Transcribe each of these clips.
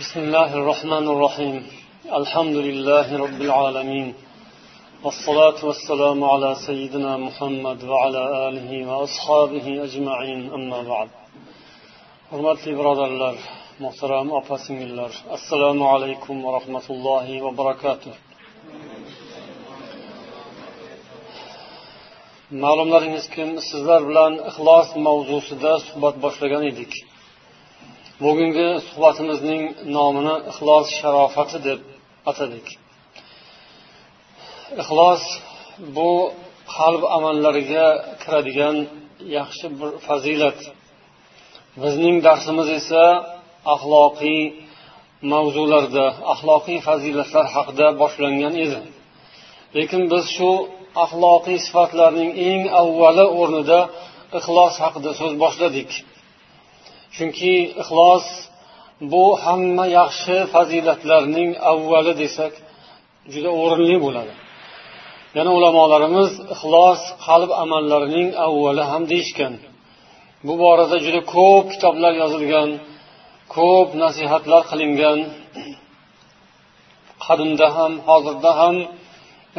بسم الله الرحمن الرحيم. الحمد لله رب العالمين، والصلاة والسلام على سيدنا محمد وعلى آله وأصحابه أجمعين، أما بعد. Hurmatli birodarlar, muhtaram opa-singillar, assalomu alaykum va rahmatullohi va barakatuh. Ma'lumlaringizki, sizlar bilan ixlos mavzusida suhbat boshlagan edik. Bugungi suhbatimizning nomini ixlos sharofati deb atadik. Ixlos bu qalb amallariga kiradigan yaxshi bir fazilat. Bizning darsimiz esa axloqiy mavzularda, axloqiy fazilatlar haqida boshlangan edi. Lekin biz shu axloqiy sifatlarning eng avvali o'rnida ixlos haqida so'z boshladik. Chunki ixlos bu hamma yaxshi fazilatlarning avvali desak juda o'rinli bo'ladi. Yana ulamolarimiz ixlos qalb amallarining avvali ham deyishgan. Bu borada juda ko'p kitoblar yozilgan, ko'p nasihatlar qilingan. Qadimda ham, hozirda ham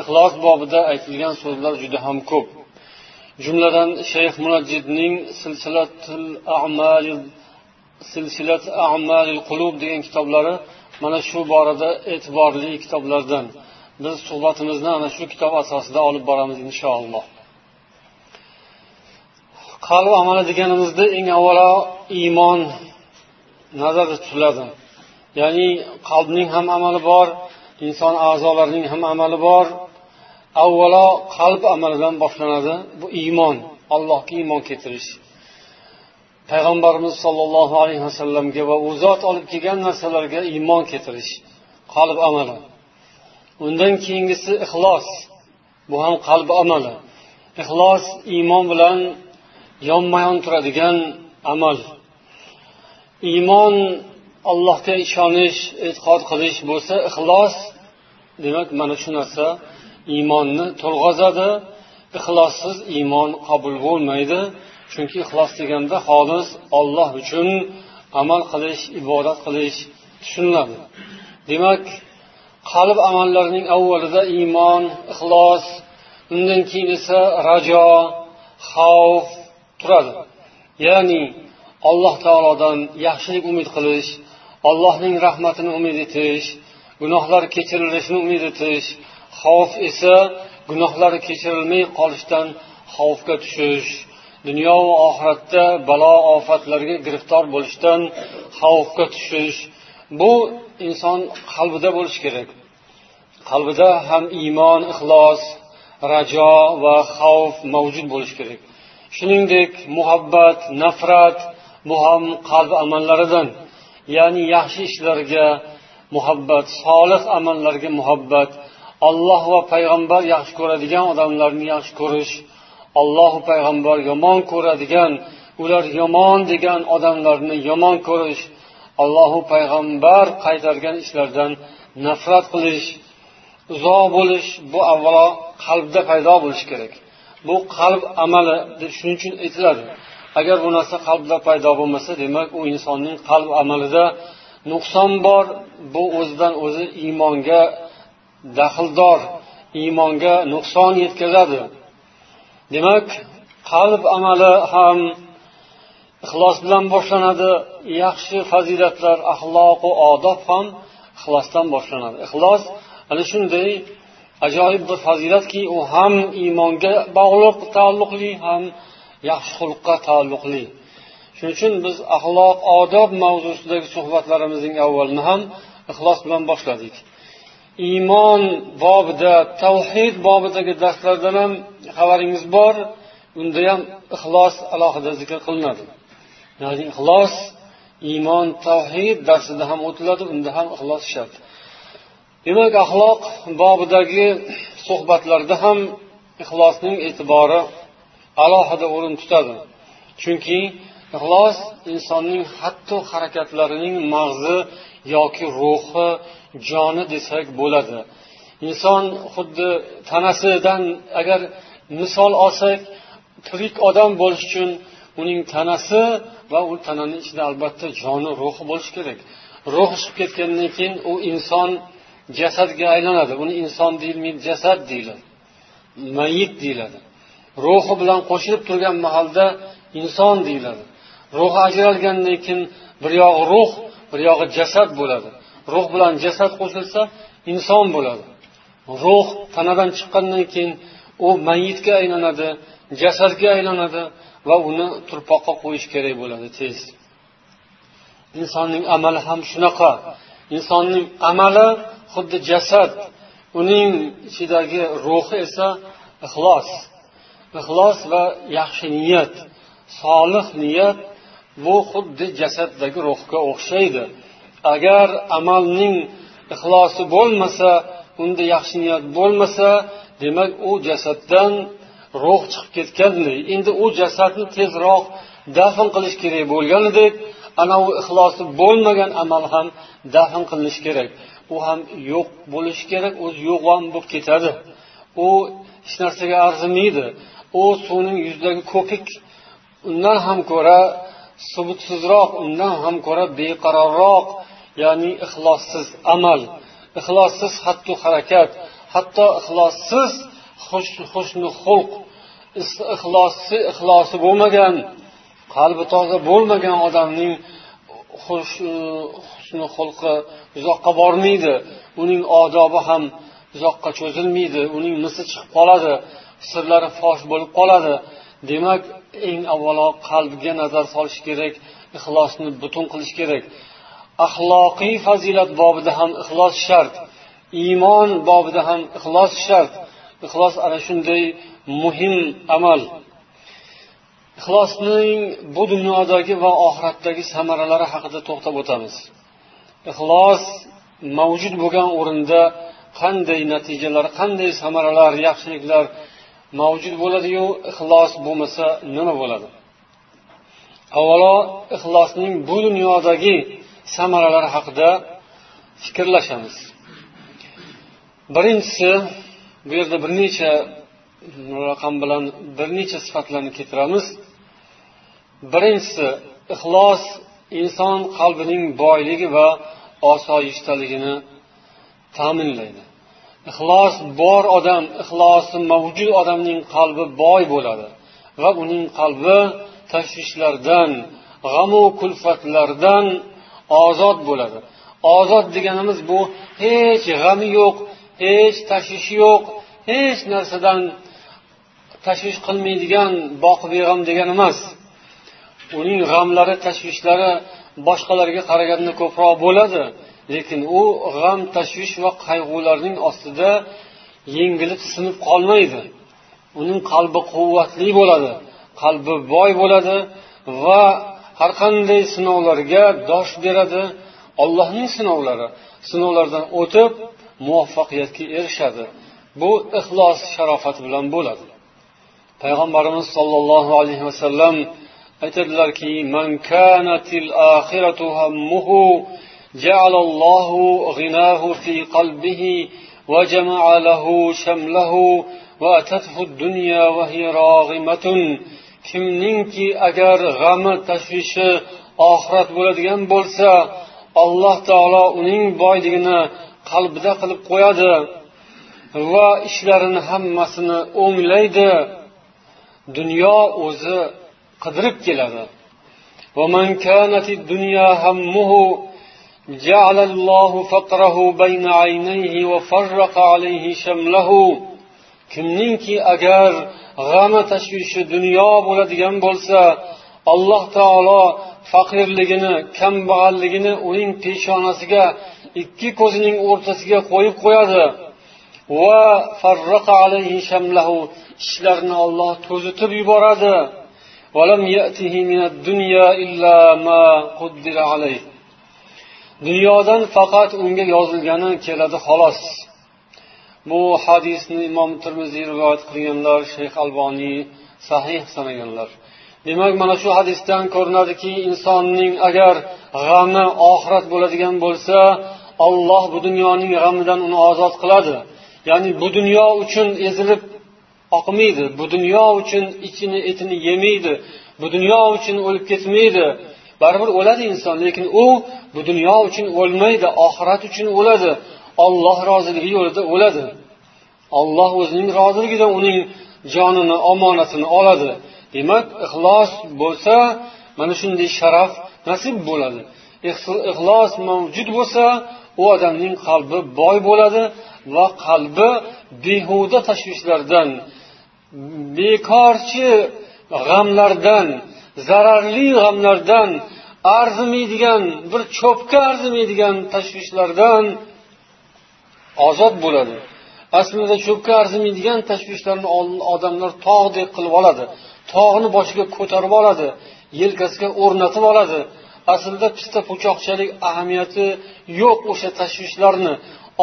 ixlos bobida aytilgan so'zlar juda ham ko'p. Jumladan Shayx Munajjidning Silsilat a'malil qulub degan kitoblari mana shu borada e'tiborli kitoblardan. Biz suhbatimizni ana shu kitob asosida olib boramiz inshaalloh. Qalb amali deganimizda eng avvalo iymon nazarda tutiladi. Ya'ni qalbning ham amali bor, inson a'zolarining ham amali bor. Avvalo qalb amalidan boshlanadi. Bu iymon, Allohga iymon keltirish. Payg'ambarimiz sollallohu alayhi vasallamga va u zot olib kelgan narsalarga iymon keltirish qalb amali. Undan keyingisi ixlos. Bu ham qalb amali. Ixlos iymon bilan yonma-yon turadigan amal. Iymon Allohga ishonish, e'tiqod qilish bo'lsa, ixlos demak mana shu narsa iymonni to'lg'azadi. Ixlossiz iymon qabul bo'lmaydi. Chunki ixlos deganda xolis Alloh uchun amal qilish, ibodat qilish tushuniladi. Demak, qalb amallarining avvalida iymon, ixlos, undan keyin esa rajo, xavf turadi. Ya'ni Alloh taolodan yaxshilik umid qilish, Allohning rahmatini umid etish, gunohlar kechirilishini umid etish, xavf esa gunohlari kechirilmay qolishdan xavfga tushish, dunyo va oxiratda balo ofatlarga giriftor bo'lishdan xavfga tushish. Bu inson qalbida bo'lishi kerak. Qalbida ham iymon, ixlos, rajo va xavf mavjud bo'lishi kerak. Shuningdek, muhabbat, nafrat bu ham qalb amallaridan. Ya'ni yaxshi ishlarga muhabbat, solih amallarga muhabbat, Alloh va payg'ambar yaxshi ko'radigan odamlarni yaxshi ko'rish, Alloh va payg'ambar yomon ko'radigan, ular yomon degan odamlarni yomon ko'rish, Alloh va payg'ambar qaytargan ishlardan nafrat qilish, uzoq bo'lish, bu avvalo qalbda paydo bo'lishi kerak. Bu qalb amali deb shuning uchun aytiladi. Agar bu narsa qalbda paydo bo'lmasa, demak u insonning qalb amalida nuqson bor, bu o'zidan o'zi iymonga daxldor, iymonga nuqson yetkazadi. Demak, qalb amali ham ixlos bilan boshlanadi, yaxshi fazilatlar, axloq va odob ham ixlosdan boshlanadi. Ixlos ana shunday ajoyib bir fazilatki, u ham iymonga bog'liq, taalluqli, ham yaxshi xulqqa taalluqli. Shuning uchun biz axloq, odob mavzusidagi suhbatlarimizning avvalini ham ixlos bilan boshladik. Iymon bobida, tavhid bobidagi darslardan ham xabaringiz bor, unda ham ixlos alohida zikr qilinadi. Ya'ni ixlos iymon, tavhid darsida ham o'tiladi, unda ham ixlos shart. Demak, axloq bobidagi suhbatlarda ham ixlosning e'tibori alohida o'rin tutadi. Chunki ixlos insonning hatto harakatlarining mag'zi yoki ruhi, joni desak bo'ladi. Inson xuddi tanasidan agar misol olsak, tirik odam bo'lish uchun uning tanasi Va u tananing ichida albatta joni, ruhi bo'lishi kerak. Ruh chiqib ketgandan keyin u inson jasadga aylanadi. Uni inson deyilmaydi, jasad deyiladi. Mayit deyiladi. Ruhi bilan qo'shilib turgan mahalda inson deyiladi. Ruhi ajralgandan keyin bir yog'i ruh, bir yog'i jasad bo'ladi. Ruh bilan jasad qo'shilsa inson bo'ladi. Ruh tanadan chiqqandan keyin u mayitga aylanadi, jasadga aylanadi va uni turpoqqa qo'yish kerak bo'ladi tez. Insonning amali ham shunaqa. Insonning amali xuddi jasad, uning ichidagi ruhi esa ixlos. Ixlos va yaxshi niyat, solih niyat bu xuddi jasaddagi ruhga o'xshaydi. Agar amalning ixlosi bo'lmasa, unda yaxshi niyat bo'lmasa, demak u jasaddan ruh chiqib ketganday. Endi u jasadni tezroq dafn qilish kerak bo'lganidek, ana u ixlosi bo'lmagan amal ham dafn qilinishi kerak. U ham yo'q bo'lishi kerak, o'zi yo'q ham bo'lib ketadi. U hech narsaga arzimaydi. U suvning yuzidagi ko'pik, undan ham ko'ra subutsizroq, undan ham ko'ra beqarorroq, ya'ni ixlossiz amal, ixlossiz xattu harakat, hatto ixlossiz husni xulq, ixlosi bo'lmagan, qalbi toza bo'lmagan odamning husni xulqi uzoqqa bormaydi, uning odobi ham uzoqqa cho'zilmaydi, uning misi chiqib qoladi, sirlari fosh bo'lib qoladi. Demak, eng avvalo qalbga nazar solish kerak, ixlosni butun qilish kerak. Axloqiy fazilat bobida ham ixlos shart, iymon bobida ham ixlos shart. Ixlos ana shunday muhim amal. Ixlosning bu dunyodagi va oxiratdagi samaralari haqida to'xtab o'tamiz. Ixlos mavjud bo'lgan o'rinda qanday natijalar, qanday samaralar, yaxshiliklar mavjud bo'ladi-yu, ixlos bo'lmasa nima bo'ladi? Avvalo ixlosning bu dunyodagi samaralari haqida fikrlashamiz. Birinchisi, bu yerda bir necha raqam bilan bir necha sifatlarni keltiramiz. Birinchisi, ixlos inson qalbining boyligi va osoyishtaligini ta'minlaydi. Ixlos bor odam, ixlosi mavjud odamning qalbi boy bo'ladi va uning qalbi tashvishlardan, g'amu kulfatlardan ozod bo'ladi. Ozod deganimiz bu hech g'ami yo'q, hech tashvishi yo'q, hech narsadan tashvish qilmaydigan boqibeg'am degani emas. Uning g'amlari, tashvishlari boshqalarga qaraganda ko'proq bo'ladi, lekin u g'am, tashvish va qayg'ularning ostida yengilib sinib qolmaydi. Uning qalbi quvvatli bo'ladi, qalbi boy bo'ladi va har qanday sinovlarga dosh beradi. Allohning sinovlari, sinovlardan o'tib muvaffaqiyatga erishadi. Bu ixlos sharofati bilan bo'ladi. Payg'ambarimiz sollallohu alayhi vasallam aytadilarki: "Man kanatil oxiratu hammuhu ja'ala Allohu g'inahu fi qalbihi va jama'a lahu shamlahu va atathu ad-dunya va hiya rag'imatun." Kimningki agar g'ami, tashvishi oxirat bo'ladigan bo'lsa, Alloh taolo uning boyligini qalbida qilib qo'yadi va ishlarini hammasini o'nglaydi. Dunyo o'zi qidirib keladi. Va man kanatid dunya hammuhu ja'ala Allohu faqrahu bayna aynayhi va farraqa alayhi shamlahu. Kimningki agar g'ami, tashvishi dunyo bo'ladigan bo'lsa, Alloh taolo faqirligini, kambag'alligini uning peshonasiga, ikki ko'zining o'rtasiga qo'yib qo'yadi. Va farraqa alayhi shamlahu, ishlarini Alloh to'zitib yuboradi. Va lam ya'tihi minad dunya illa ma quddira alayhi. Dunyodan faqat unga yozilgani keladi xolos. Bu hadisni Imom Termiziy rivoyat qilganlar, Shayx Alboniy sahih sanaganlar. Demak, mana shu hadisdan ko'rinadiki, insonning agar g'ami oxirat bo'ladigan bo'lsa, Alloh bu dunyoning g'amidan uni ozod qiladi. Ya'ni bu dunyo uchun ezilib oqmaydi, bu dunyo uchun ichini etini yemaydi, Bu dunyo uchun o'lib ketmaydi. Baribir o'ladi inson, lekin u bu dunyo uchun o'lmaydi, oxirat uchun o'ladi. Alloh roziligi yo'lida o'ladi. Alloh o'zining roziligida uning jonini, omonatini oladi. Demak, ixlos bo'lsa, mana shunday sharaf nasib bo'ladi. Ixlos mavjud bo'lsa, u odamning qalbi boy bo'ladi va qalbi behuda tashvishlardan, bekorchi g'amlardan, zararli g'amlardan, arzimaydigan, bir cho'pga arzimaydigan tashvishlardan ozod bo'ladi. Aslida cho'pga arzimaydigan tashvishlarni odamlar tog'dek qilib oladi. Tog'ni boshiga ko'tarib oladi, yelkasiga o'rnatib oladi. Aslida pista po'choqchalik ahamiyati yo'q o'sha tashvishlarni.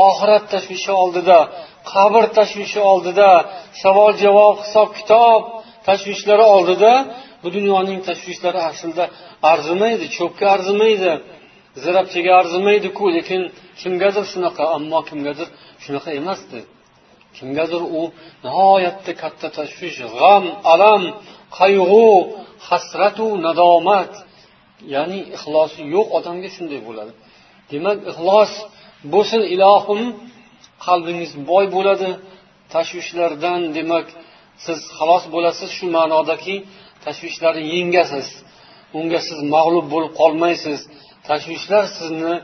Oxirat tashvishi oldida, qabr tashvishi oldida, savol javob, hisob kitob tashvishlari oldida bu dunyoning tashvishlari aslida arzimaydi, cho'pga arzimaydi, zirabchaga arzimaydi-ku, lekin kimgadir shunaqa, ammo kimgadir shunaqa emasdi. Kimgadir u nihoyatda katta tashvish, g'am, alam, qayg'u, hasratu nadomat, ya'ni ixlosi yo'q odamga shunday bo'ladi. Demak, ixlos bo'lsin ilohim, qalbingiz boy bo'ladi tashvishlardan. Demak, siz xalos bo'lasiz shu ma'nodaki tashvishlarni yengasiz, unga siz mag'lub bo'lib qolmaysiz, tashvishlar sizni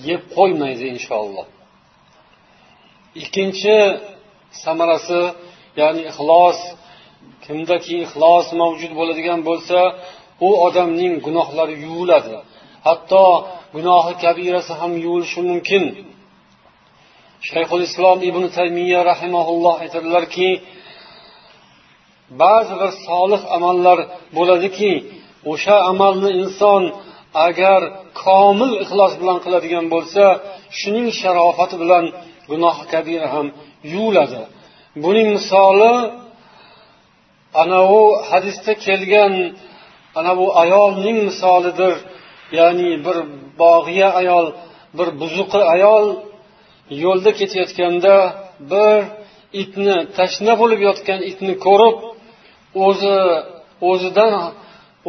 yeb qo'ymaydi inshaalloh. Ikkinchi samarasi, ya'ni ixlos, kimdaki ixlos mavjud bo'ladigan bo'lsa, u odamning gunohlari yuviladi. Hatto gunohi kabirasi ham yuvilishi mumkin. Shayxul Islom Ibn Taymiya rahimahulloh aytadilarki, ba'zi bir solih amallar bo'ladiki, o'sha amalni inson agar komil ixlos bilan qiladigan bo'lsa, shuning sharofati bilan gunohi kabira ham yuviladi. Buning misoli ana u hadisda kelgan ana bu ayolning misolidir. Ya'ni bir bog'iya ayol, bir buzuqi ayol yo'lda ketayotganda bir itni, tashna bo'lib yotgan itni ko'rib,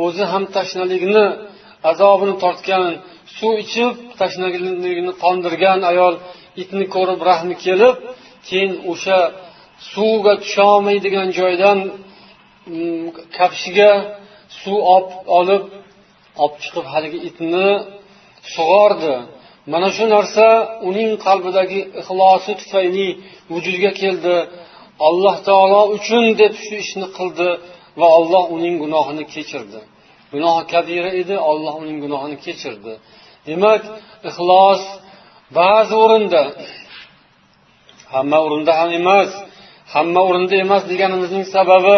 o'zi ham tashnalikni azobini tortgan, suv ichib tashnaligini qondirgan ayol itni ko'rib rahmi kelib, keyin o'sha suvga tusha olmaydigan joydan kafshiga suv olib chiqib haligi itni sug'ordi. Mana shu narsa uning qalbidagi ixlosi tufayli vujudga keldi. Alloh taolo uchun deb shu ishni qildi va Alloh uning gunohini kechirdi. Gunohi kabira edi, Alloh uning gunohini kechirdi. Demak, ixlos ba'zi o'rinda, hamma o'rinda ham emas, hamma o'rinda emas deganimizning sababi,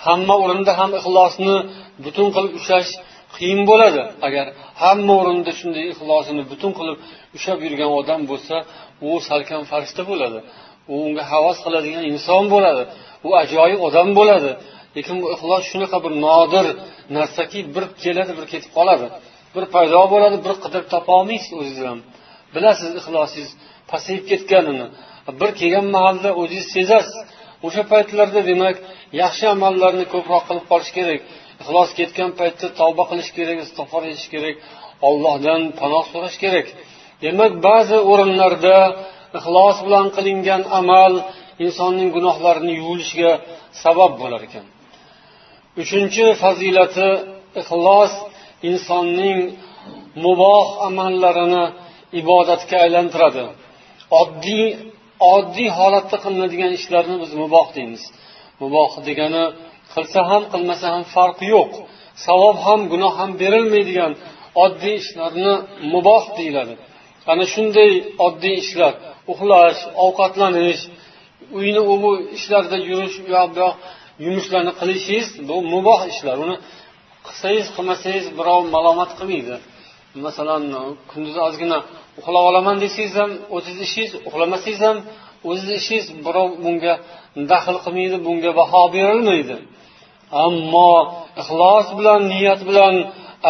hamma o'rinda ham ixlosni butun qilib ushlash qiyin bo'ladi. Agar hamma o'rinda shunday ixlosini butun qilib ushlab yurgan odam bo'lsa, u salkam farishta bo'ladi. U unga havas qiladigan inson bo'ladi. U ajoyib odam bo'ladi. Lekin bu ixlos shunaqa bir nodir narsaki, bir keladi, bir ketib qoladi. Bir paydo bo'ladi, bir qidirib topa olmaysiz o'zingiz ham. Bilasiz ixlosingiz pasayib ketganini. Bir kelgan mahalda o'zingiz sezasiz. O'sha paytlarda demak, yaxshi amallarni ko'proq qilib qolish kerak. Ixlos ketgan paytda tavba qilish kerak, istig'for etish kerak, Allohdan panoh so'rash kerak. Demak, ba'zi o'rinlarda ixlos bilan qilingan amal insonning gunohlarini yuvilishiga sabab bo'lar ekan. Uchinchi fazilati, ixlos insonning muboh amallarini ibodatga aylantiradi. Oddiy holatda qilinadigan ishlarni biz muboh deymiz. Muboh degani qilsa ham qilmasa ham farqi yo'q. Savob ham gunoh ham berilmaydigan oddiy ishlarni muboh deyiladi. Ana shunday oddiy ishlar, uxlash, ovqatlanish, uyni u bu ishlarda yurish, u yoq bu yoq yumushlarni qilishingiz bu muboh ishlar. Uni qilsangiz, qilmasangiz birov malomat qilmaydi. Masalan, kunduz ozgina uxlab olaman desangiz ham o'zingiz ishingiz, uxlamasangiz ham o'zingiz ishingiz, birov bunga daxl qilmaydi, bunga baho berilmaydi. Ammo ixlos bilan, niyat bilan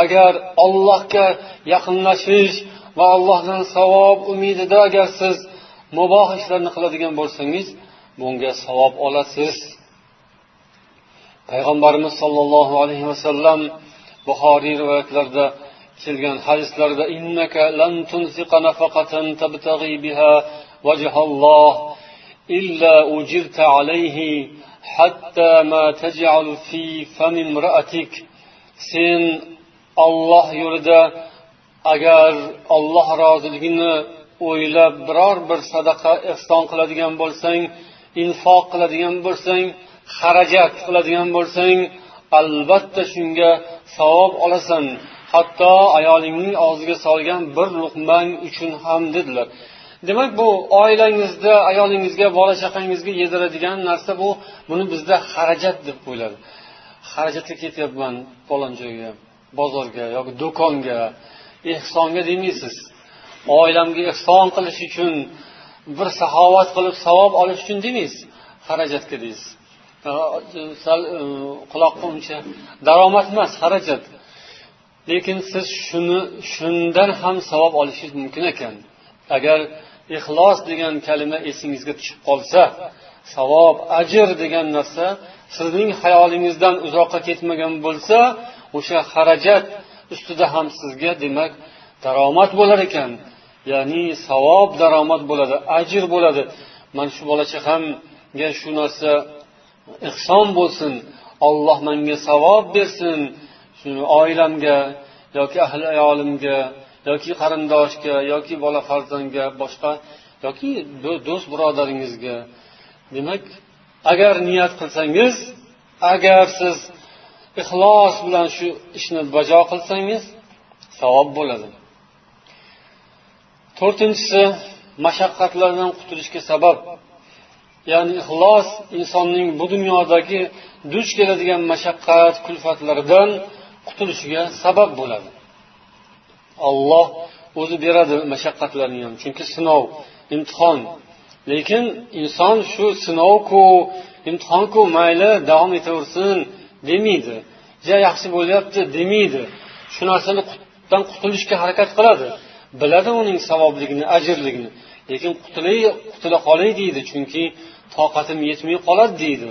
agar Allohga yaqinlashish va Allohdan savob umidida agar siz muboh ishlarni qiladigan bo'lsangiz, bunga savob olasiz. Payg'ambarimiz sollallohu alayhi vasallam Buxoriy rivoyatlarida kelgan hadislarda innaka lan tunfiqa nafaqatan tabtaghi biha wajhalloh illa ujirta alayhi hatta ma taj'al fi fami imra'atik. Sen Alloh yo'lida agar Alloh roziligini o'ylab biror bir sadaqa ihson qiladigan bo'lsang, infoq qiladigan bo'lsang, xarajat qiladigan bo'lsang, albatta shunga savob olasan. Hatto ayolingning og'ziga solgan bir luqmang uchun ham dedilar. Demak, bu oilangizda ayolingizga, bola chaqangizga yediradigan narsa bu. Buni bizda xarajat deb qo'yiladi. Xarajatga ketyapman falon joyga, bozorga yoki do'konga, ehsonga demaysiz. Oilamga ehson qilish uchun, bir saxovat qilib savob olish uchun demaysiz, xarajatga deysiz. Sal quloqqa uncha daromad emas, xarajat. Lekin siz shundan ham savob olishingiz mumkin ekan. Agar ixlos degan kalima esingizga tushib qolsa, savob, ajr degan narsa sizning xayolingizdan uzoqqa ketmagan bo'lsa, o'sha xarajat ustida ham sizga demak daromad bo'lar ekan. Ya'ni savob daromad bo'ladi, ajr bo'ladi. Mana shu bola chaqamga shu narsa ihson bo'lsin, Alloh menga savob bersin, shuni oilamga yoki ahli ayolimga yoki qarindoshga yoki bola farzandga, boshqa yoki do'st birodaringizga. Demak, agar niyat qilsangiz, agar siz ixlos bilan shu ishni bajo qilsangiz, savob bo'ladi. To'rtinchisi, mashaqqatlardan qutulishga sabab. Ya'ni ixlos insonning bu dunyodagi duch keladigan mashaqqat, kulfatlardan qutulishiga sabab bo'ladi. Alloh o'zi beradi mashaqqatlarni ham, chunki sinov, imtihon. Lekin inson shu sinovku, imtihonku mayli davom etaversin demaydi. Ja yaxshi bo'lyapti demaydi. Shu narsani qutulishga harakat qiladi. Biladi uning savobligini, ajrligini. Lekin qutula qolay deydi, chunki toqatim yetmay qoladi deydi.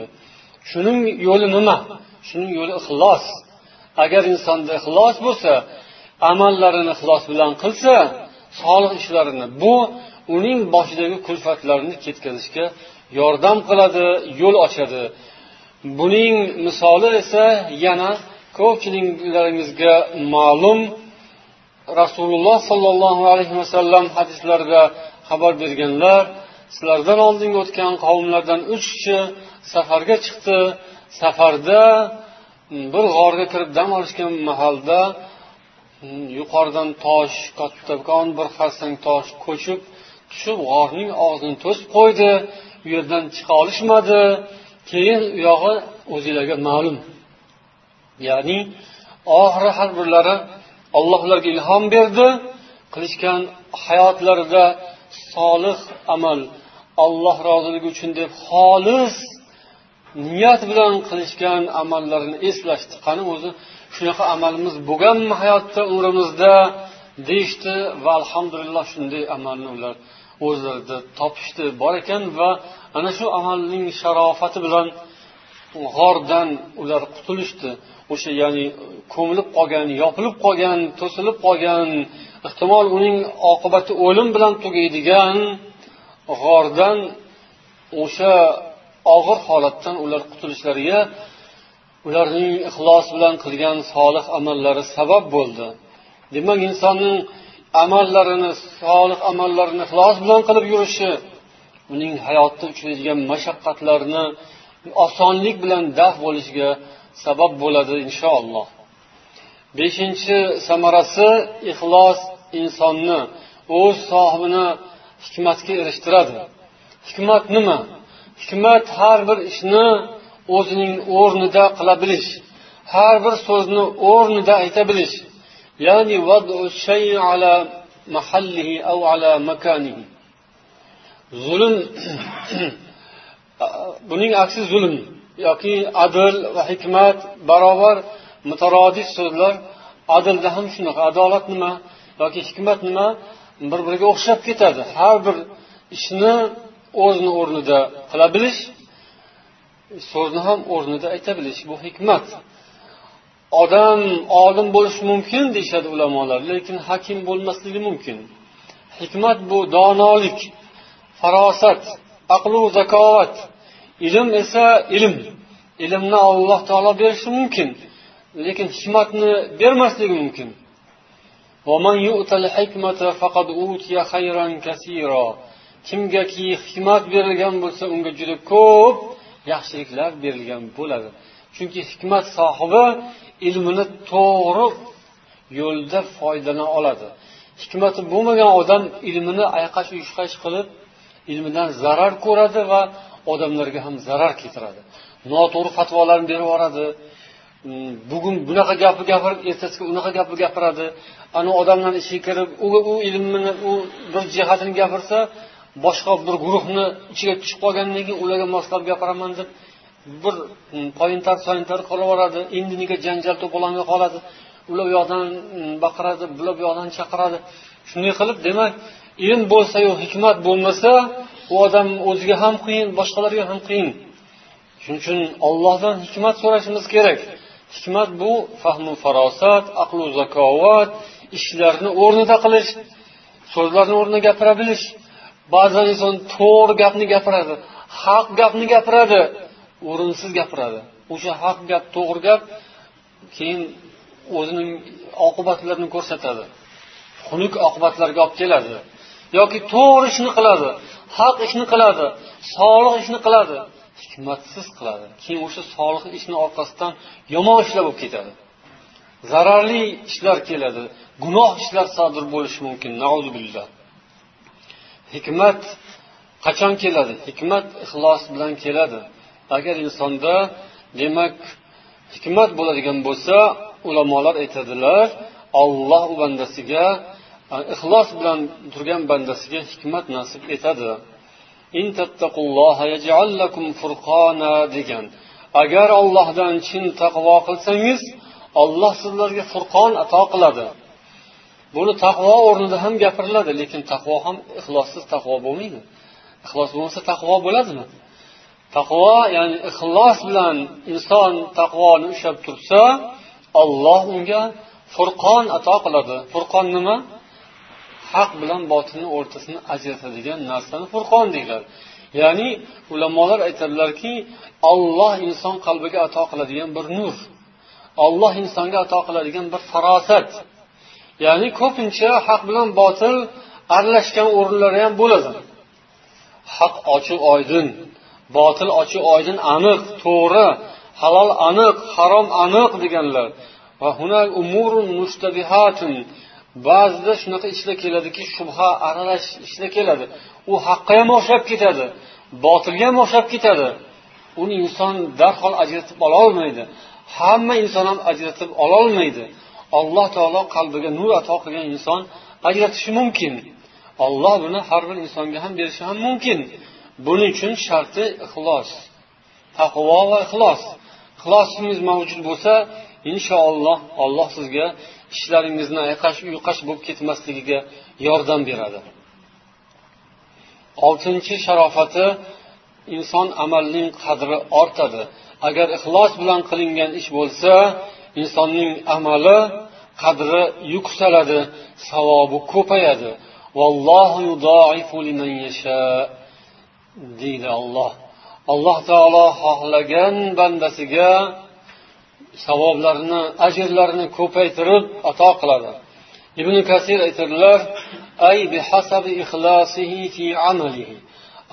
Shuning yo'li nima? Shuning yo'li ixlos. Agar insonda ixlos bo'lsa, amallarini ixlos bilan qilsa, solih ishlarini, bu uning boshidagi kulfatlarni ketkazishga yordam qiladi, yo'l ochadi. Buning misoli esa yana ko'pchiliklaringizga ma'lum. Rasululloh sollallohu alayhi vasallam hadislarida xabar berganlar, sizlardan oldingi o'tgan qavmlardan 3 kishi safarga chiqdi. Safarda bir g'orga kirib dam olishgan mahalda yuqoridan tosh, kattakon bir xarsang tosh ko'chib tushib g'orning og'zini to'sib qo'ydi. U yerdan chiqa olishmadi. Keyin u yog'i o'zinglarga ma'lum. Ya'ni oxiri har birlari Alloh ularga ilhom berdi, qilishgan hayotlarida solih amal, Alloh roziligi uchun deb xolis niyat bilan qilishgan amallarini eslashdi. Qani o'zi shunaqa amalimiz bo'lganmi hayotda, umrimizda deyishdi va alhamdulillah shunday amalni ular o'zlarida topishdi, bor ekan va ana shu amalning sharofati bilan g'ordan ular qutulishdi. O'sha ya'ni ko'milib qolgan, yopilib qolgan, to'silib qolgan, ehtimol uning oqibati o'lim bilan tugaydigan g'ordan, o'sha og'ir holatdan ular qutulishlariga ularning ixlos bilan qilgan solih amallari sabab bo'ldi. Demak, insonning amallarini, solih amallarini ixlos bilan qilib yurishi uning hayotda uchraydigan mashaqqatlarni osonlik bilan daf bo'lishiga sabab bo'ladi inshaalloh. 5. samarasi, ixlos insonni o'z sohibini hikmatga erishtiradi. Hikmat nima? Hikmat har bir ishni o'zining o'rnida qila bilish, har bir so'zni o'rnida ayta bilish. Ya'ni vad'u shay'i ala mahallihi aw ala makanihi. Zulm buning aksi zulm yoki adl va hikmat barobar mutarodif so'zlar. Adlda ham shunaqa, adolat nima yoki hikmat nima bir-biriga o'xshab ketadi. Har bir ishni o'zini o'rnida qila bilish, So'zni ham o'rnida ayta bilish, bu hikmat. Odam olim bo'lishi mumkin deyishadi ulamolar, lekin hakim bo'lmasligi mumkin. Hikmat bu donolik, farosat, aqlu zakovat. Ilm esa ilm. Ilmni Alloh taolo berishi mumkin, lekin hikmatni bermasligi mumkin. Va man yu'tal hikmata faqad utiya khayran kaseera. Kimgaki hikmat berilgan bo'lsa, unga juda ko'p yaxshiliklar berilgan bo'ladi. Chunki hikmat sohibi ilmini to'g'ri yo'lda foydalana oladi. Hikmati bo'lmagan odam ilmini ayqash-uyqash qilib, ilmidan zarar ko'radi va odamlarga ham zarar keltiradi. Noto'g'ri fatvolarni berib yuboradi. Bugun bunaqa gapni gapirib, ertasiga unaqa gapni gapiradi. Ana odamlar ichiga kirib, u ilmini, u bir jihatini gapirsa, boshqa bir guruhni ichiga tushib qolgandan keyin ularga moslab gapiraman deb bir poyintar-soyintar qilib yuboradi. Endi nega janjal to'polonga qoladi. Ular bu yoqdan baqiradi, bular bu yoqdan chaqiradi. Shunday qilib, demak, ilm bo'lsa-yu hikmat bo'lmasa, u odam o'ziga ham qiyin, boshqalarga ham qiyin. Shuning uchun Allohdan hikmat so'rashimiz kerak. Hikmat bu fahmu farosat, aqlu zakovat, ishlarni o'rnida qilish, so'zlarni o'rnida gapira bilish. Ba'zan inson to'g'ri gapni gapiradi, haq gapni gapiradi, o'rinsiz gapiradi. O'sha haq gap, to'g'ri gap keyin o'zining oqibatlarini ko'rsatadi. Xunuk oqibatlarga olib keladi. Yoki to'g'ri ishni qiladi, haq ishni qiladi, solih ishni qiladi, hikmatsiz qiladi. Keyin o'sha solih ishni orqasidan yomon ishlar bo'lib ketadi. Zararli ishlar keladi, gunoh ishlar sodir bo'lishi mumkin. Na'uzubillah. Hikmat qachon keladi? Hikmat ixlos bilan keladi. Agar insonda demak hikmat bo'ladigan bo'lsa, ulamolar aytadilar, Alloh u bandasiga ixlos bilan turgan bandasiga hikmat nasib etadi. In tattaqulloha yaj'al lakum furqona degan. Agar Allohdan chin taqvo qilsangiz, Alloh sizlarga furqon ato qiladi. Buni taqvo o'rnida ham gapiriladi, lekin taqvo ham ixlossiz taqvo bo'lmaydi. Ixlos bo'lmasa taqvo bo'ladimi? Taqvo, ya'ni ixlos bilan inson taqvoni ushlab tursa, Alloh unga furqon ato qiladi. Furqon nima? Haq bilan botilni o'rtasini ajratadigan narsani furqon deyiladi. Ya'ni ulamolar aytadilarki, Alloh inson qalbiga ato qiladigan bir nur. Alloh insonga ato qiladigan bir farosat. Ya'ni ko'pincha haq bilan botil aralashgan o'rinlari ham bo'ladi. Haq ochiq oydin, botil ochiq oydin aniq, to'g'ri, halol aniq, harom aniq deganlar. Va hunak umurun mushtabihatun. Ba'zida shunaqa ishlar keladiki, shubha aralash ishlar keladi. U haqqa ham o'xshab ketadi, botilga ham o'xshab ketadi. Uni inson darhol ajratib ola olmaydi. Hamma inson ham ajratib ola olmaydi. Alloh taolo qalbiga nur ato qilgan inson ajratishi mumkin. Alloh buni har bir insonga ham berishi ham mumkin. Buning uchun sharti ixlos. Taqvo va ixlos. Ixlosingiz mavjud bo'lsa, inshaalloh Alloh sizga ishlaringizni ayqash-uyqash bo'lib ketmasligiga yordam beradi. Oltinchi sharofati, inson amalining qadri ortadi. Agar ixlos bilan qilingan ish bo'lsa, insonning amali qadri yuksaladi, savobi ko'payadi. Vallohu yudaifu liman yasha deydi Alloh. Alloh taolo xohlagan bandasiga savoblarni, ajrlarni ko'paytirib ato qiladi. Ibn Kasir aytadilar, ay bihasabi ixlosihi fi amalihi.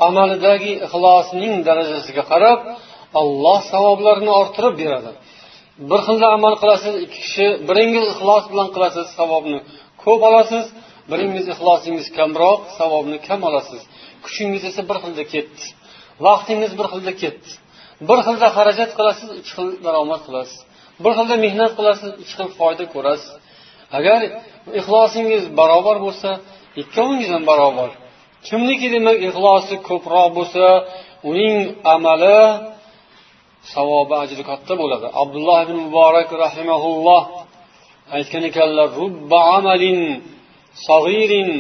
Amalidagi ixlosning darajasiga qarab Alloh savoblarni orttirib beradi. Bir xilda amal qilasiz, ikki kishi, biringiz ixlos bilan qilasiz, savobni ko'p olasiz, biringiz ixlosingiz kamroq, savobni kam olasiz. Kuchingiz esa bir xilda ketdi, vaqtingiz bir xilda ketdi. Bir xilda xarajat qilasiz, ikki xil daromad qilasiz. Bir xilda mehnat qilasiz, ikki xil foyda ko'rasiz. Agar ixlosingiz barobar bo'lsa, ikkovingiz ham barobar. Kimniki demak ixlosi ko'proq bo'lsa, uning amali savobi ajri katta bo'ladi. Abdulloh ibn Muborak rahimahulloh aytgan ekanlar, rubba amalin sag'irin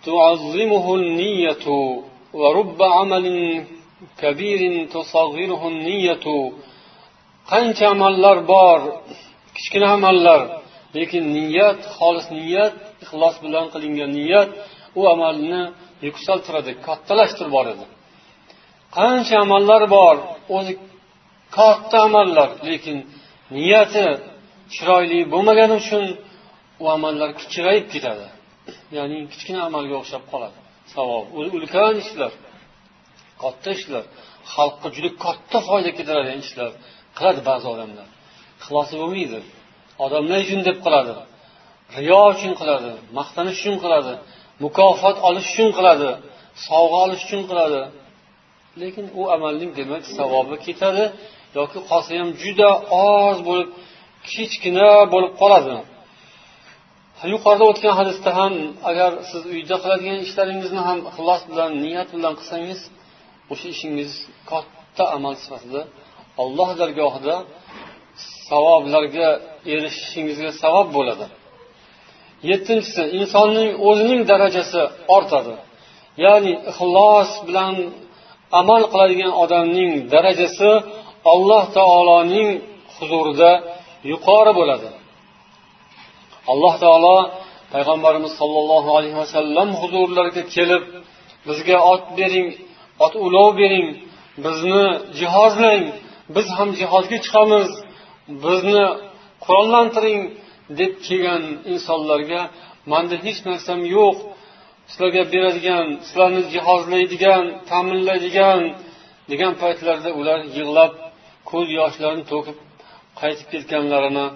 tu'azzimuhu an-niyyatu va rubba amalin kabirin tusaghiruhu an-niyyatu. Qancha amallar bor, kichkina amallar, lekin niyat, xolis niyat, ixlos bilan qilingan niyat u amalni yuksaltiradi, kattalashtirib boradi. Qancha amallar bor, o'zi katta amallar, lekin niyati chiroyli bo'lmagani uchun u amallar kichrayib ketadi. Ya'ni kichkina amalga o'xshab qoladi. Savob, ulkan ishlar, katta ishlar, xalqqa juda katta foyda keltiradigan ishlar qiladi ba'zi odamlar. Ixlosi bo'lmaydi. Odamlar uchun deb qiladi. Riyo uchun qiladi, maqtanish uchun qiladi, mukofot olish uchun qiladi, sovg'a olish uchun qiladi. Lekin u amalning demak savobi ketadi yoki qolsa ham juda oz bo'lib, kichkina bo'lib qoladi. Yuqorida o'tgan hadisda ham agar siz uyda qiladigan ishlaringizni ham ixlos bilan, niyat bilan qilsangiz, o'sha ishingiz katta amal sifatida Alloh dargohida savoblarga erishishingizga sabab bo'ladi. Yettinchisi, insonning o'zining darajasi ortadi. Ya'ni ixlos bilan amal qiladigan odamning darajasi Alloh taoloning huzurida yuqori bo'ladi. Alloh taolo payg'ambarimiz sollallohu alayhi vasallam huzurlariga kelib, bizga ot bering, ot ulov bering, bizni jihozlang, biz ham jihodga chiqamiz, bizni qurollantiring deb kelgan insonlarga menda hech narsam yo'q, sizlarga beradigan, sizlarni jihozlaydigan, ta'minlaydigan degan paytlarda ular yig'lab, ko'z yoshlarini to'kib qaytib ketganlarini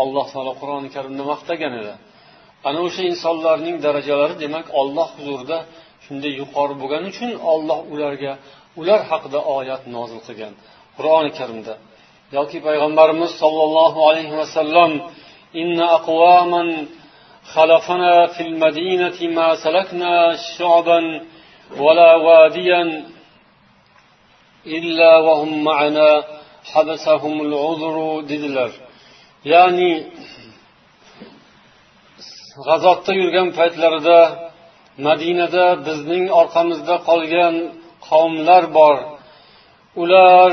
Alloh taolo Qur'oni Karimda maqtagan edi. Ana o'sha insonlarning darajalari demak Alloh huzurida shunday yuqori bo'lgani uchun Alloh ularga, ular haqida oyat nozil qilgan Qur'oni Karimda. Yoki payg'ambarimiz sollallohu alayhi vasallam inna aqwaman xalafana fil madinati ma salakna shu'ban wala wadiyan illa wa hum ma'ana habasahumul uzru dedilar. Ya'ni g'azotda yurgan paytlarida Madinada bizning orqamizda qolgan qavmlar bor. Ular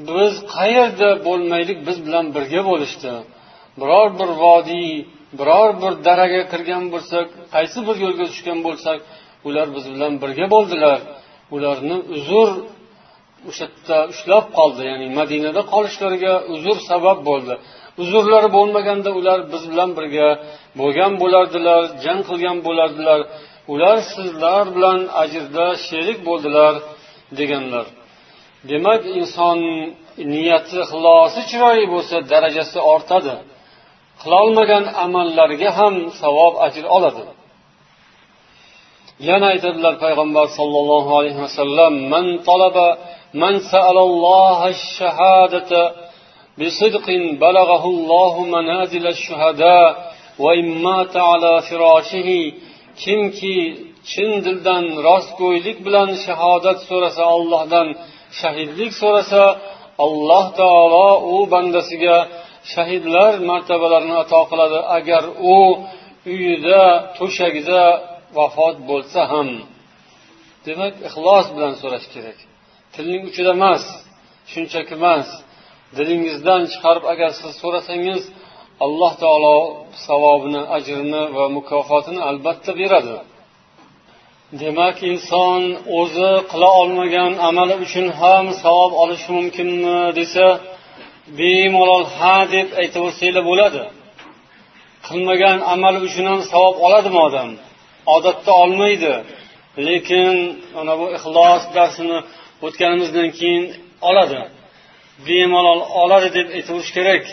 biz qayerda bo'lmaylik, biz bilan birga bo'lishdi. Biror bir vodiy, biror bir daraga kirgan bo'lsak, qaysi bir yo'lga tushgan bo'lsak, ular biz bilan birga bo'ldilar. Ularni uzr o'sha yerda ushlab qoldi, ya'ni Madinada qolishlariga uzr sabab bo'ldi. Uzrlari bo'lmaganda ular biz bilan birga bo'lgan bo'lardilar, jang qilgan bo'lardilar. Ular sizlar bilan ajrda sherik bo'ldilar deganlar. Demak, inson niyati, ixlosi chiroyli bo'lsa, darajasi ortadi. Qilolmagan amallarga ham savob, ajr oladi. Yana aytadilar payg'ambar sollallohu alayhi vasallam: "Man talaba man sa'alalloha ash-shahadata bisidqin balaghahu Allohu manazil ash-shuhada va in mata ala firashihi." Kimki chin dildan rostgo'ylik bilan shahodat so'rasa, Allohdan shahidlik so'rasa, Alloh taolo u bandasiga shahidlar martabalarini ato qiladi, agar u uyida, to'shagida vafot bo'lsa ham. Demak, ixlos bilan so'rash kerak. Tilning uchida emas, shunchaki emas. Dilingizdan chiqarib agar siz so'rasangiz, Alloh taolo savobini, ajrini va mukofotini albatta beradi. Demak, inson o'zi qila olmagan amali uchun ham savob olishi mumkinmi desa, bemalol ha deb aytaversanglar bo'ladi. Qilmagan amali uchun ham savob oladimi odam? Odatda olmaydi. Lekin ana bu ixlos darsini o'tganimizdan keyin oladi. Bemalol oladi deb aytaverish kerak.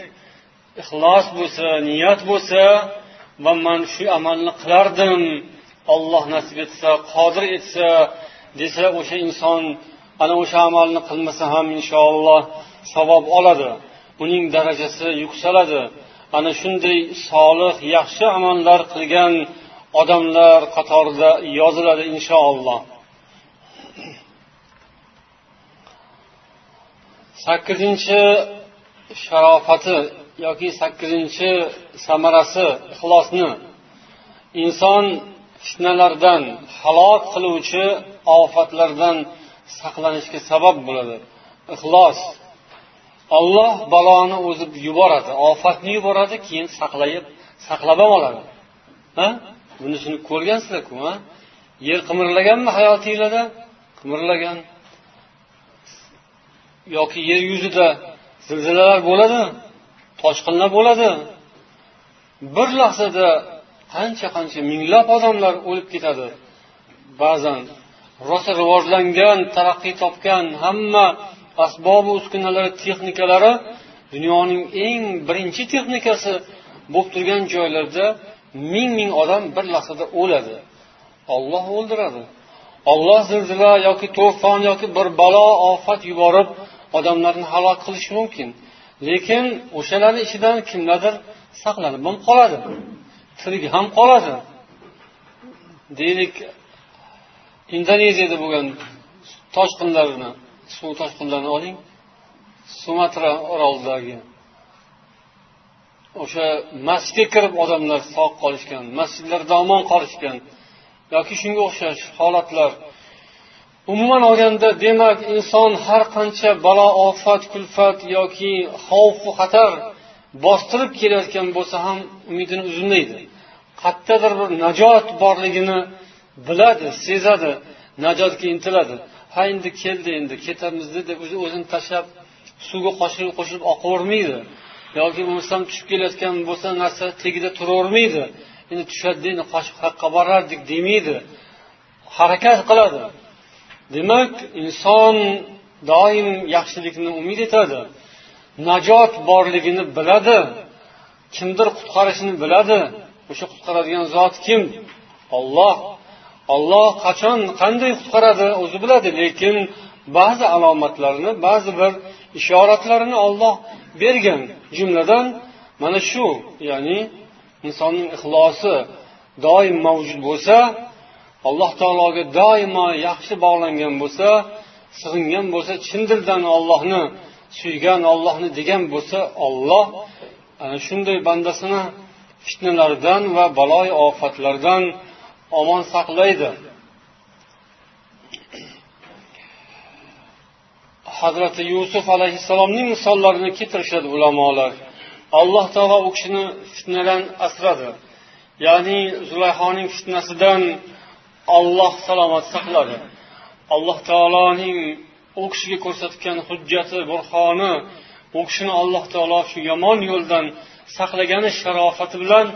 Ixlos bo'lsa, niyat bo'lsa, va men shu amalni qilardim, Alloh nasib etsa, qodir etsa desa, o'sha inson ana o'sha amalni qilmasa ham inshaalloh savob oladi. Uning darajasi yuksaladi. Ana shunday solih, yaxshi amallar qilgan odamlar qatorida yoziladi inshaalloh. 8-chi sharofati yoki 8-chi samarasi ixlosni inson fitnalardan, halok qiluvchi ofatlardan saqlanishga sabab bo'ladi. Ixlos. Alloh baloni o'zi yuboradi, ofatni yuboradi, keyin saqlab ham oladi. Ha? Bunisini ko'rgansizlar-ku, ha? Yer qimirlaganmi hayotingizda? Qimirlagan. Yoki yer yuzida zilzilalar bo'ladi, toshqinlar bo'ladi. Bir lahzada qancha-qancha minglab odamlar o'lib ketadi. Ba'zan rosa rivojlangan, taraqqiy topgan hamma asbob uskunalari, texnikalari dunyoning eng birinchi texnikasi bo'lib turgan joylarda ming-ming odam bir lahzada o'ladi. Alloh o'ldiradi. Alloh zilzila yoki to'fon yoki bir balo ofat yuborib odamlarni halok qilishi mumkin. Lekin o'shalarning ichidan kimlardir saqlanib ham qoladi. Tirik ham qoladi. Deylik, Indoneziyada bo'lgan toshqinlarni, suv toshqinlarini oling. Sumatra orolidagi o'sha masjidga kirib odamlar sog' qolishgan, masjidlarda omon qolishgan yoki shunga o'xshash holatlar. Umuman olganda, demak, inson har qancha balo, ofat, kulfat yoki xavf va xatar bostirib kelayotgan bo'lsa ham umidini uzmaydi. Qayerdadir bir najot borligini biladi, sezadi, najotga intiladi. Ha, endi keldi, endi ketamiz deb o'zini tashlab suvga qo'shilib oqavermaydi. Yoki bo'lmasam tushib kelayotgan bo'lsa narsa tagida turavermaydi. Endi tushadi, endi qochib haqqa borardik demaydi. Harakat qiladi. Demak, inson doim yaxshilikni umid etadi. Najot borligini biladi. Kimdir qutqarishini biladi. O'sha qutqaradigan zot kim? Alloh. Alloh qachon, qanday qutqaradi o'zi biladi, lekin ba'zi alomatlarni, ba'zi bir ishoratlarini Alloh bergan. Jumladan mana shu, ya'ni insonning ixlosi doim mavjud bo'lsa, Alloh taologa doimo yaxshi bog'langan bo'lsa, sig'ingan bo'lsa, chin dildan Allohni suygan, Allohni degan bo'lsa, Alloh ana shunday bandasini fitnalardan va baloy ofatlardan omon saqlaydi. Hazrati Yusuf alayhissalomning misollarini keltirishadi ulamolar. Alloh taolo u kishini fitnadan asradi. Ya'ni Zulayhoning fitnasidan Alloh salomat saqladi. Alloh taoloning u kishiga ko'rsatgan hujjati, burhoni, u kishini Alloh taolo shu yomon yo'ldan saqlagani sharofati bilan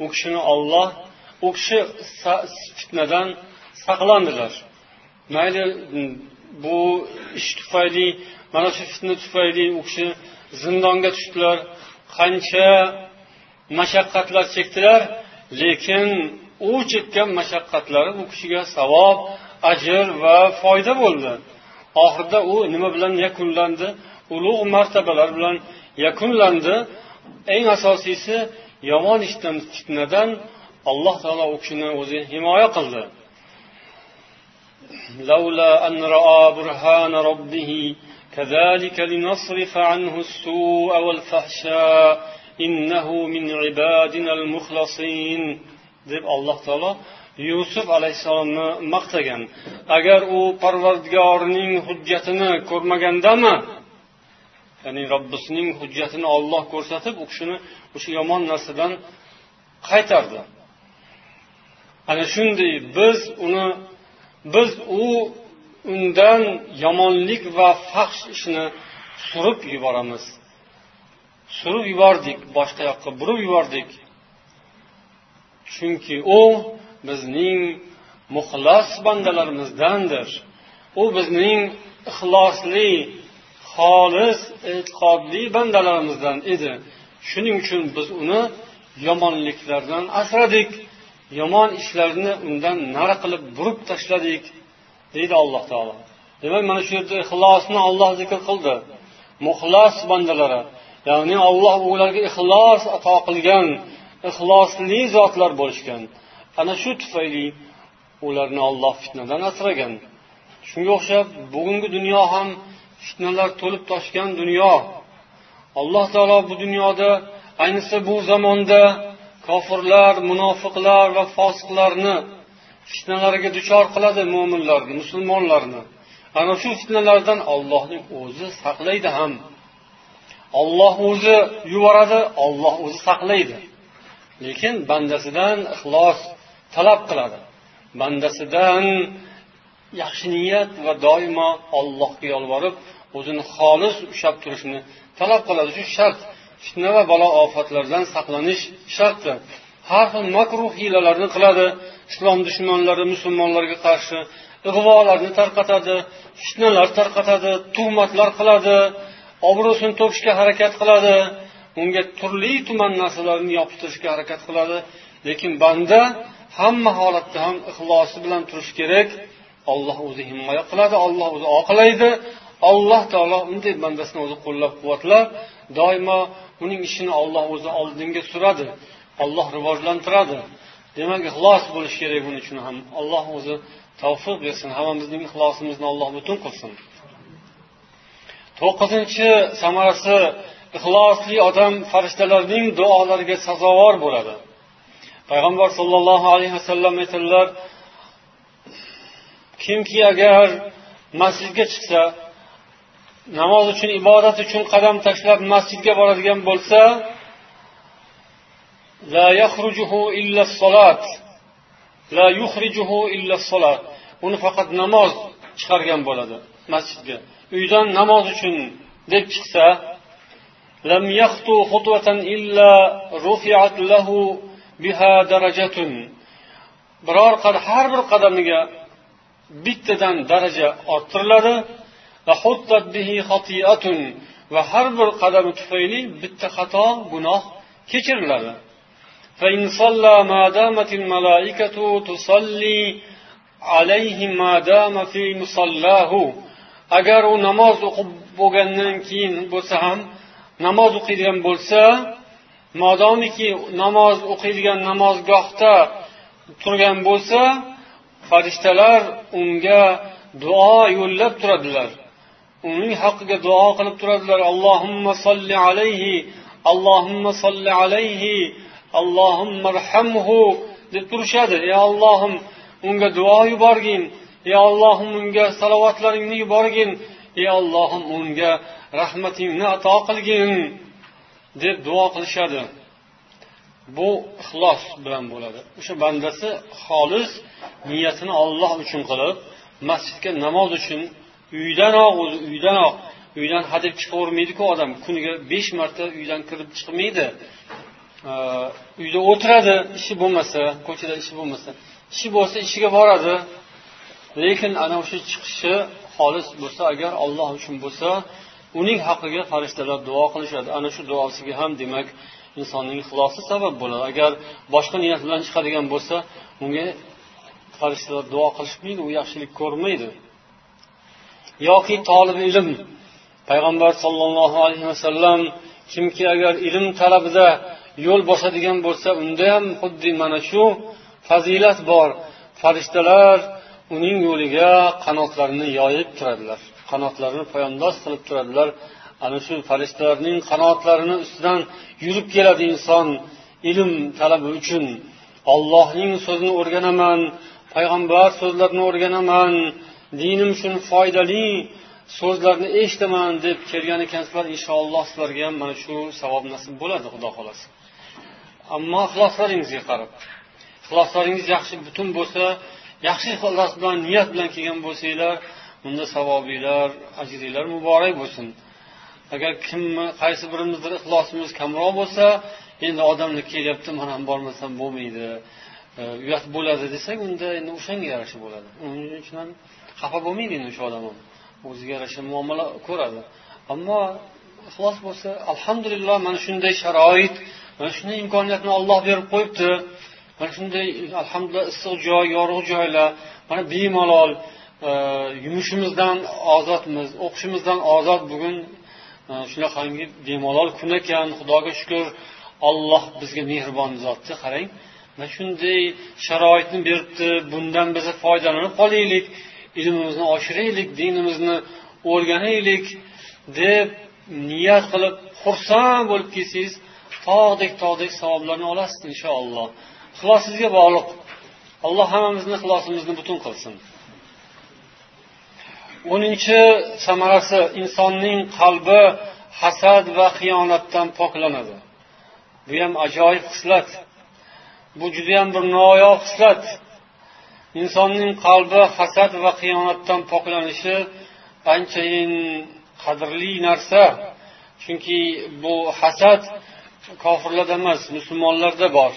u kishini Alloh, u kishi fitnadan saqlandilar. Mayli bu ish tufayli, mana shu fitna tufayli u kishi zindonga tushdilar, qancha mashaqqatlar chekdilar, lekin u chekkan mashaqqatlari u kishiga savob, ajr va foyda bo'ldi. Oxirida u nima bilan yakunlandi? Ulug' martabalar bilan yakunlandi. Eng asosiysi, yomon ishdan, fitnadan Alloh taolo u kishini o'zi himoya qildi. لولا أن رأى برهان ربه كذلك لنصرف عنه السوء والفحشاء إنه من عبادنا المخلصين deb Alloh taolo Yusuf alayhissalomni maqtagan. Agar u Parvardigorining hujjatini ko'rmagandami, ya'ni Robbisining hujjatini Alloh ko'rsatib, u kishini o'sha yomon narsadan qaytardi. Ana shunday biz undan yomonlik va fahsh ishni surib yuboramiz. Surib yubordik, boshqa yoqqa burib yubordik. Chunki u bizning muxlas bandalarimizdandir. U bizning ixlosli, xolis, e'tiqodli bandalarimizdan edi. Shuning uchun biz uni yomonliklardan asradik, yomon ishlarni undan nari qilib burib tashladik, deydi Alloh taolo. Demak, mana shu yerda ixlosni Alloh zikr qildi. Muxlas bandalari, ya'ni Alloh ularga ixlos ato qilgan, ixlosli zotlar bo'lishgan. Ana shu tufayli ularni Alloh fitnadan asragan. Shunga o'xshab bugungi dunyo ham fitnalar to'lib toshgan dunyo. Alloh taolo bu dunyoda, ayniqsa bu zamonda kofirlar, munofiqlar va fosiqlarni fitnalariga duchor qiladi mo'minlarni, musulmonlarni. Ana shu fitnalardan Allohning o'zi saqlaydi ham. Alloh o'zi yuboradi, Alloh o'zi saqlaydi. Lekin bandasidan ixlos talab qiladi. Bandasidan yaxshi niyat va doimo Allohga yolvorib, o'zini xolis ushlab turishni talab qiladi. Shu shart, fitna va balo ofatlardan saqlanish sharti. Har xil makruh hiylalarni qiladi islom dushmanlari musulmonlarga qarshi, ig'volarni tarqatadi, fitnalar tarqatadi, tuhmatlar qiladi, obro'sini to'kishga harakat qiladi, unga turli tuman narsalarni yopishtirishga harakat qiladi. Lekin banda hamma holatda ham ixlosi bilan turish kerak. Alloh o'zi himoya qiladi, Alloh o'zi oqlaydi. Alloh taolo unday bandasini o'zi qo'llab-quvvatlab, doimo uning ishini Alloh o'zi oldinga suradi, Alloh rivojlantiradi. Demak, ixlos bo'lish kerak buning uchun ham. Alloh o'zi tavfiq bersin, hammamizning ixlosimizni Alloh butun qilsin. 9-chi samarasi, ixlosli odam farishtalarning duolariga sazovor bo'ladi. Payg'ambar sollallohu alayhi vasallam aytadilar, kimki agar masjidga chiqsa, namoz uchun, ibodat uchun qadam tashlab masjidga boradigan bo'lsa, la yakhrujuhu illa as-salat. La yukhrijuhu illa as-salat. Uni faqat namoz chiqargan bo'ladi masjidga. Uydan namoz uchun deb chiqsa, lam yakhtu khutwatan illa rufi'at lahu biha darajatun. Biror har bir qadamiga bittadan daraja orttiriladi va huttat bihi xati'atun, va har bir qadami tufayli bitta xato, gunoh kechiriladi. Fa in salla ma damatil malaikatu tusalli alayhi ma dama fi musallahu. Agar u namoz o'qib bo'lgandan keyin bo'lsa ham, namoz o'qiydigan bo'lsa, modomiki namoz o'qiydigan namozgohda turgan bo'lsa, farishtalar unga duo yo'llab turadilar. Uning haqqiga duo qilib turadilar. Allohumma solli alayhi, Allohumma solli alayhi, Allohumma arhamhu deb turishadi. Ey Allohim, unga duo yuborgin. Ey Allohim, unga salovatlaringni yuborgin. Ey Allohim, unga rahmatingni ato qilgin deb duo qilishadi. Bu ixlos bilan bo'ladi. O'sha bandasi xolis niyatini Alloh uchun qilib, masjidga namoz uchun uydanoq, o'zi uydanoq, uydan hadeb chiqavermaydi-ku odam. Kuniga 5 marta uydan kirib chiqmaydi. Uyda o'tiradi, ishi bo'lmasa, ko'chada ishi bo'lmasa, ishi bo'lsa ishiga boradi. Lekin ana o'sha chiqishi xolis bo'lsa, agar Alloh uchun bo'lsa, uning haqqiga farishtalar duo qilishadi. Ana shu duosiga ham demak insonning ixlosi sabab bo'ladi. Agar boshqa niyat bilan chiqadigan bo'lsa, unga farishtalar duo qilishmaydi, u yaxshilik ko'rmaydi. Yoki tolib ilm, payg'ambar sollallohu alayhi vasallam kimki agar ilm talabida yo'l bosadigan bo'lsa, unda ham xuddi mana shu fazilat bor. Farishtalar uning yo'liga qanotlarini yoyib turadilar, qanotlarini poyandoz qilib turadilar. Ana shu farishtalarning qanotlarini ustidan yurib keladi inson ilm talabi uchun. Allohning so'zini o'rganaman, payg'ambar so'zlarini o'rganaman, dinim uchun foydali so'zlarni eshitaman deb kelgan ekansizlar, inshaalloh sizlarga ham mana shu savob nasib bo'ladi, Xudo xolasa. Ammo ixloslaringizga qarab, ixloslaringiz yaxshi butun bo'lsa, yaxshi ixlos bilan, niyat bilan kelgan bo'lsanglar, unda savobinglar, ajringlar muborak bo'lsin. Agar kimni, qaysi birimizdir ixlosimiz kamroq bo'lsa, endi odamlar kelyapti, men ham bormasam bo'lmaydi, uyat bo'ladi desak, unda endi o'shanga yarasha bo'ladi. Uning uchun ham xafa bo'lmaydi endi o'sha odam ham. O'ziga yarasha muomala ko'radi. Ammo ixlos bo'lsa, alhamdulillah, mana shunday sharoit, mana shunday imkoniyatni Alloh berib qo'yibdi. Mana shunday alhamdulillah issiq joy, yorug' joylar, mana bemalol yumushimizdan ozodmiz, o'qishimizdan ozod bugun shunaqangi bemalol kun ekan, Xudoga shukr, Alloh bizga mehribon zotni qarang. Mana shunday sharoitni beribdi, bundan biz foydalanib qolaylik, ilmimizni oshiraylik, dinimizni o'rganaylik deb niyat qilib xursand bo'lib kelsangiz, tog'dek savoblarni olasiz inshaalloh. Ixlosingizga bog'liq. Alloh hammamizni ixlosimizni butun qilsin. 10 samarasi, insonning qalbi hasad va xiyonatdan poklanadi. Bu ham ajoyib xislat. Bu juda ham bir noyob xislat. Insonning qalbi hasad va xiyonatdan poklanishi anchayin qadrli narsa. Chunki bu hasad kofirlarda emas, musulmonlarda bor.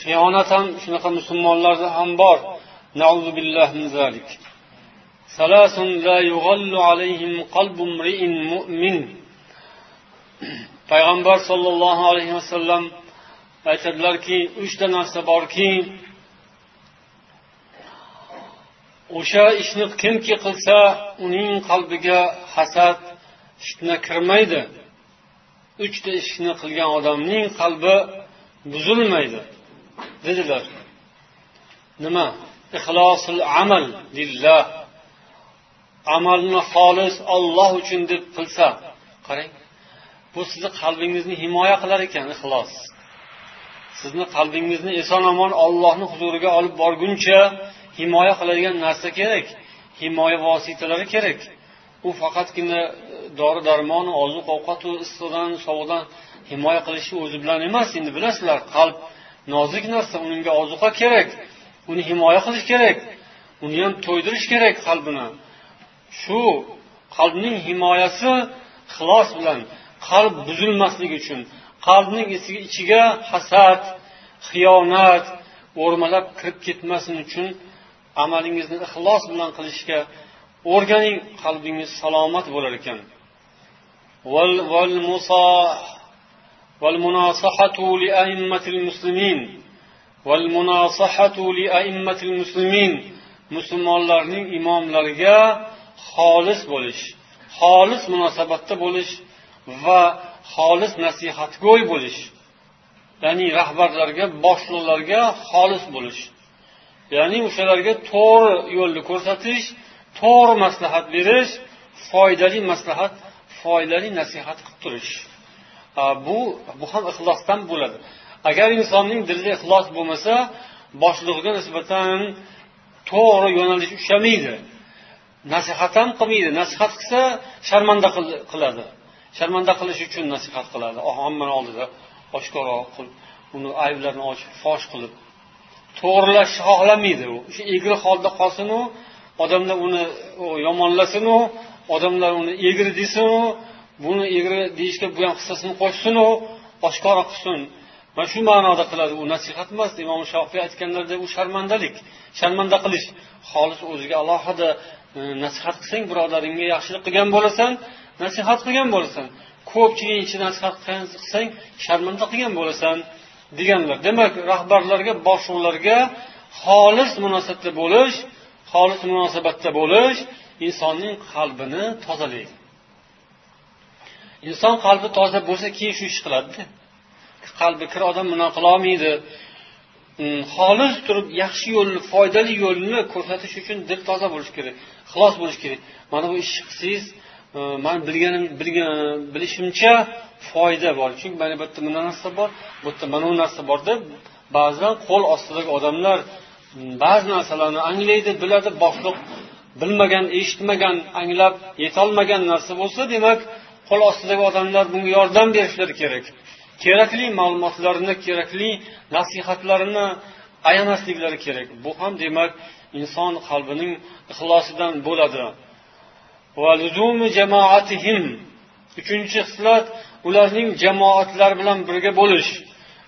Xiyonat ham shunaqa musulmonlarda ham bor. Na'uzu billahi min zalik. Salasun la yughallu alayhim qalbu imri'in mu'min. Payg'ambar sollallohu alayhi vasallam aytadilarki, 3 ta narsa borki, o'sha ishni kimki qilsa, uning qalbiga hasad, fitna kirmaydi. 3 ta ishni qilgan odamning qalbi buzilmaydi, dedilar. Nima? Ixlosul amal lillah. Amalni xolis Alloh uchun deb qilsa, qarang, bu sizni qalbingizni himoya qilar ekan ixlos. Sizni qalbingizni eson-omon Allohning huzuriga olib borguncha himoya qiladigan narsa kerak, himoya vositalari kerak. U faqatgina dori-darmon, oziq-ovqat va issiqdan, sovuqdan himoya qilishi o'zi bilan emas. Endi bilasizlar, qalb nozik narsa, unga ozuqa kerak, uni himoya qilish kerak, uni ham to'ydirish kerak qalbini. Shu qalbning himoyasi ixlos bilan, qalb buzilmasligi uchun, qalbning ichiga hasad, xiyonat o'rmalab kirib ketmasin uchun amalingizni ixlos bilan qilishga o'rganing, qalbingiz salomat bo'lar ekan. Wal munasahatu li a'immatil muslimin. Wal munasahatu li a'immatil muslimin. Musulmonlarning imomlariga xolis bo'lish, xolis munosabatda bo'lish va xolis nasihatgo'y bo'lish. Ya'ni rahbarlarga, boshliqlarga xolis bo'lish. Ya'ni o'shalarga to'g'ri yo'lni ko'rsatish, to'g'ri maslahat berish, foydali maslahat, foydali nasihat qilib turish. Bu ham ixlosdan bo'ladi. Agar insonning dilida ixlos bo'lmasa, boshlig'iga nisbatan to'g'ri yo'nalish ushlamaydi. Nasihat ham qilmaydi. Nasihat qilsa sharmanda qiladi. Sharmanda qilish uchun nasihat qiladi. Hammani oldida oshkora qilib, uni ayblarini ochib, fosh qilib, to'g'rilashni xohlamaydi u. O'sha egri holda qolsin u, odamlar uni yomonlasin u, odamlar uni egri desin u, buni egri deyishga bu ham hissasini qo'shsin u, oshkora qilsin. Mana shu ma'noda qiladi. U nasihat emas. Imom Shofiy aytganlarida u sharmandalik, sharmanda qilish. Xolis o'ziga alohida nasihat qilsang, birodaringga yaxshilik qilgan bo'lasan, nasihat qilgan bo'lasan. Ko'pchilik ichida nasihat qilsang, sharmanda qilgan bo'lasan deganlar. Demak, rahbarlarga, boshliqlarga xolis munosabatda bo'lish, xolis munosabatda bo'lish insonning qalbini tozalaydi. Inson qalbi toza bo'lsa, keyin shu ish qiladi. Qalbi kir odam buni qila olmaydi. Xolis turib yaxshi yo'lni, foydali yo'lni ko'rsatish uchun dil toza bo'lish kerak, ixlos bo'lish kerak. Mana bu ishni qilsangiz, men bilishimcha foyda bor. Chunki mana bu yerda mana narsa bor, bu yerda mana bu narsa bor deb ba'zan qo'l ostidagi odamlar ba'zi narsalarni anglaydi, biladi, boshliq bilmagan, eshitmagan, anglab yetolmagan narsa bo'lsa, demak, qo'l ostidagi odamlar bunga yordam berishlari kerak. Kerakli ma'lumotlarni, kerakli nasihatlarni ayamasliklari kerak. Bu ham demak inson qalbining ixlosidan bo'ladi. Va luzumi jamoatihim. Uchinchi xislat, ularning jamoatlari bilan birga bo'lish.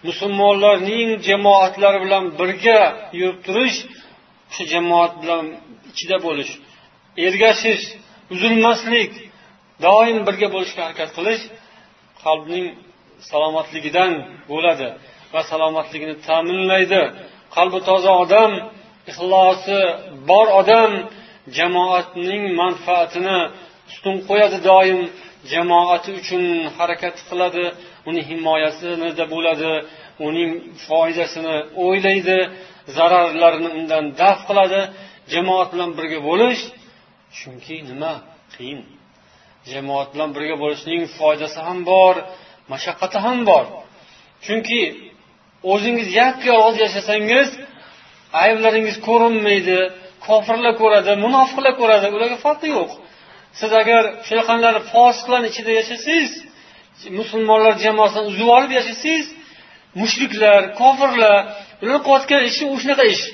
Musulmonlarning jamoatlari bilan birga yurib turish, shu jamoat bilan ichida bo'lish, ergashish, uzilmaslik, doim birga bo'lishga harakat qilish qalbning salomatligidan bo'ladi va salomatligini ta'minlaydi. Qalbi toza odam, ixlosi bor odam jamoatning manfaatini ustun qo'yadi, doim jamoati uchun harakat qiladi, uni himoyasida bo'ladi, uning foydasini o'ylaydi, zararlarini undan daf qiladi. Jamoat bilan birga bo'lish, chunki nima qiyin. Jamoat bilan birga bo'lishning foydasi ham bor, mashaqqati ham bor. Chunki o'zingiz yakka yolg'iz yashasangiz, ayblaringiz ko'rinmaydi, Kofirlar ko'radi, munofiqlar ko'radi, ularga farqi yo'q. Siz agar shunaqangilar fosiqlarning ichida yashasangiz, musulmonlar jamoasidan uzib olib yashasangiz, mushriklar, kofirlar, ular qilayotgan ishi shunaqa ish.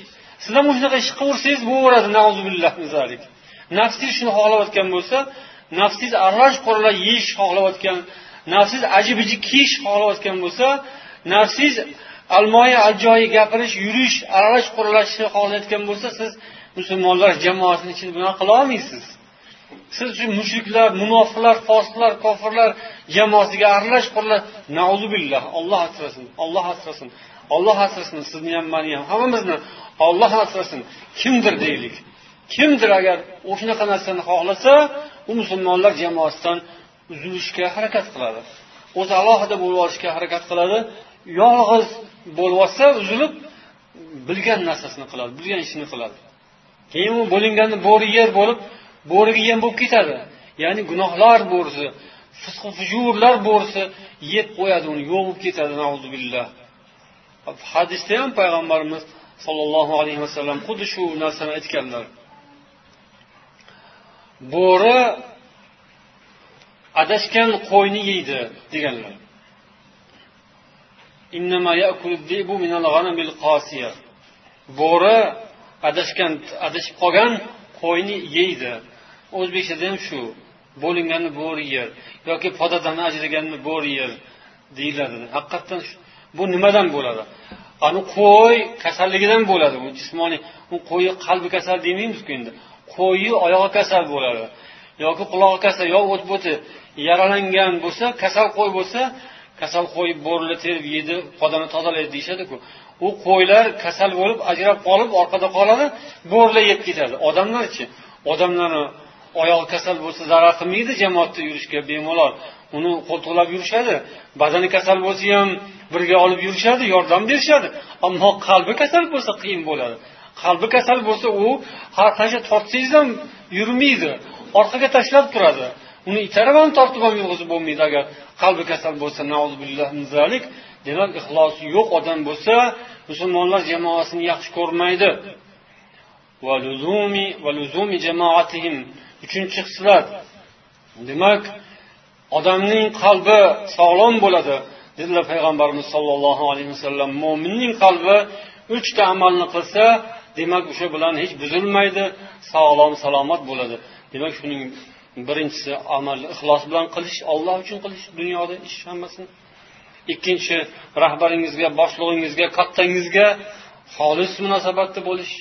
Siz ham shunaqa ish qilsangiz bo'laveradi, na'uzubillah min zalik. Nafsingiz shuni xohlayotgan bo'lsa, nafsingiz aralash quralash yeyish xohlayotgan, nafsingiz ajib-ajib kiyish xohlayotgan bo'lsa, nafsingiz almoyi ajoyi gapirish, yurish, aralash quralashni xohlayotgan bo'lsa, siz musulmonlar jamoasining ichida bunaqa qila olmaysiz. Siz shu mushriklar, munofiqlar, fosiqlar, kofirlar jamoasiga aralash quralash, na'uzubillah, Alloh asrasin, Alloh asrasin, Alloh asrasin, sizni ham, meni ham, hammamizni Alloh asrasin. Kimdir deylik. Kimdir agar o'shanaqa narsani xohlasa, u musulmonlar jamoasidan uzilishga harakat qiladi. O'zi alohida bo'lib olishga harakat qiladi. Yolg'iz bo'lib olsa, uzilib bilgan narsasini qiladi, bilgan ishini qiladi. Keyin u bo'linganni bo'ri yer bo'lib, bo'riga yem bo'lib ketadi. Ya'ni gunohlar bo'risi, fisq fujurlar bo'risi yeb qo'yadi uni, yo'q bo'lib ketadi, na'uzubillah. Hadisda ham payg'ambarimiz sollallohu alayhi vasallam xuddi shu narsani aytganlar. Bo'ri adashgan qo'yni yeydi deganlar. Innama ya'kulu ad-dibu minal g'anamil qasiya. Bo'ri adashgan, adashib qolgan qo'yni yeydi. O'zbekchada ham shu, bo'linganni bo'ri yer yoki podadan ajraganni bo'ri yer deyiladi. Haqiqatan bu nimadan bo'ladi? Ani qo'y kasalligidan bo'ladi. Bu jismoniy, u qo'yi qalbi kasal demaymiz-ku endi. Qo'yi oyog'i kasal bo'ladi yoki qulog'i kasal, yo o't bo'ti yaralangan bo'lsa, kasal qo'y bo'lsa, kasal qo'y bo'rili terib yedi, podani tozalaydi deyishadi-ku. U qo'ylar kasal bo'lib ajrab qolib orqada qoladi, bo'rilar yeb ketadi. Odamlarchi, odamlarni oyog'i kasal bo'lsa zarar qilmaydi, jamoatda yurishga bemalol uni qo'ltiqlab yurishadi. Badani kasal bo'lsa ham birga olib yurishadi, yordam berishadi. Ammo qalbi kasal bo'lsa qiyin bo'ladi. Qalbi kasal bo'lsa u har qancha tortsangiz ham yurmaydi, orqaga tashlab turadi. Uni itarib ham tortib ham yurg'izib bo'lmaydi agar qalbi kasal bo'lsa, na'uzubillah min zalik. Demak, ixlosi yo'q odam bo'lsa, musulmonlar jamoasini yaxshi ko'rmaydi. Va luzumi jamoatihim. Uchinchi xislat. Demak, odamning qalbi sog'lom bo'ladi, dedilar payg'ambarimiz sollallohu alayhi vasallam. Mo'minning qalbi uchta amalni qilsa, demak o'sha bilan hech buzilmaydi, sog'lom, salomat bo'ladi. Demak, shuning birinchisi amalni ixlos bilan qilish, Alloh uchun qilish, dunyoda ish hammasini. Ikkinchi, rahbaringizga, boshlig'ingizga, kattangizga xolis munosabatda bo'lish.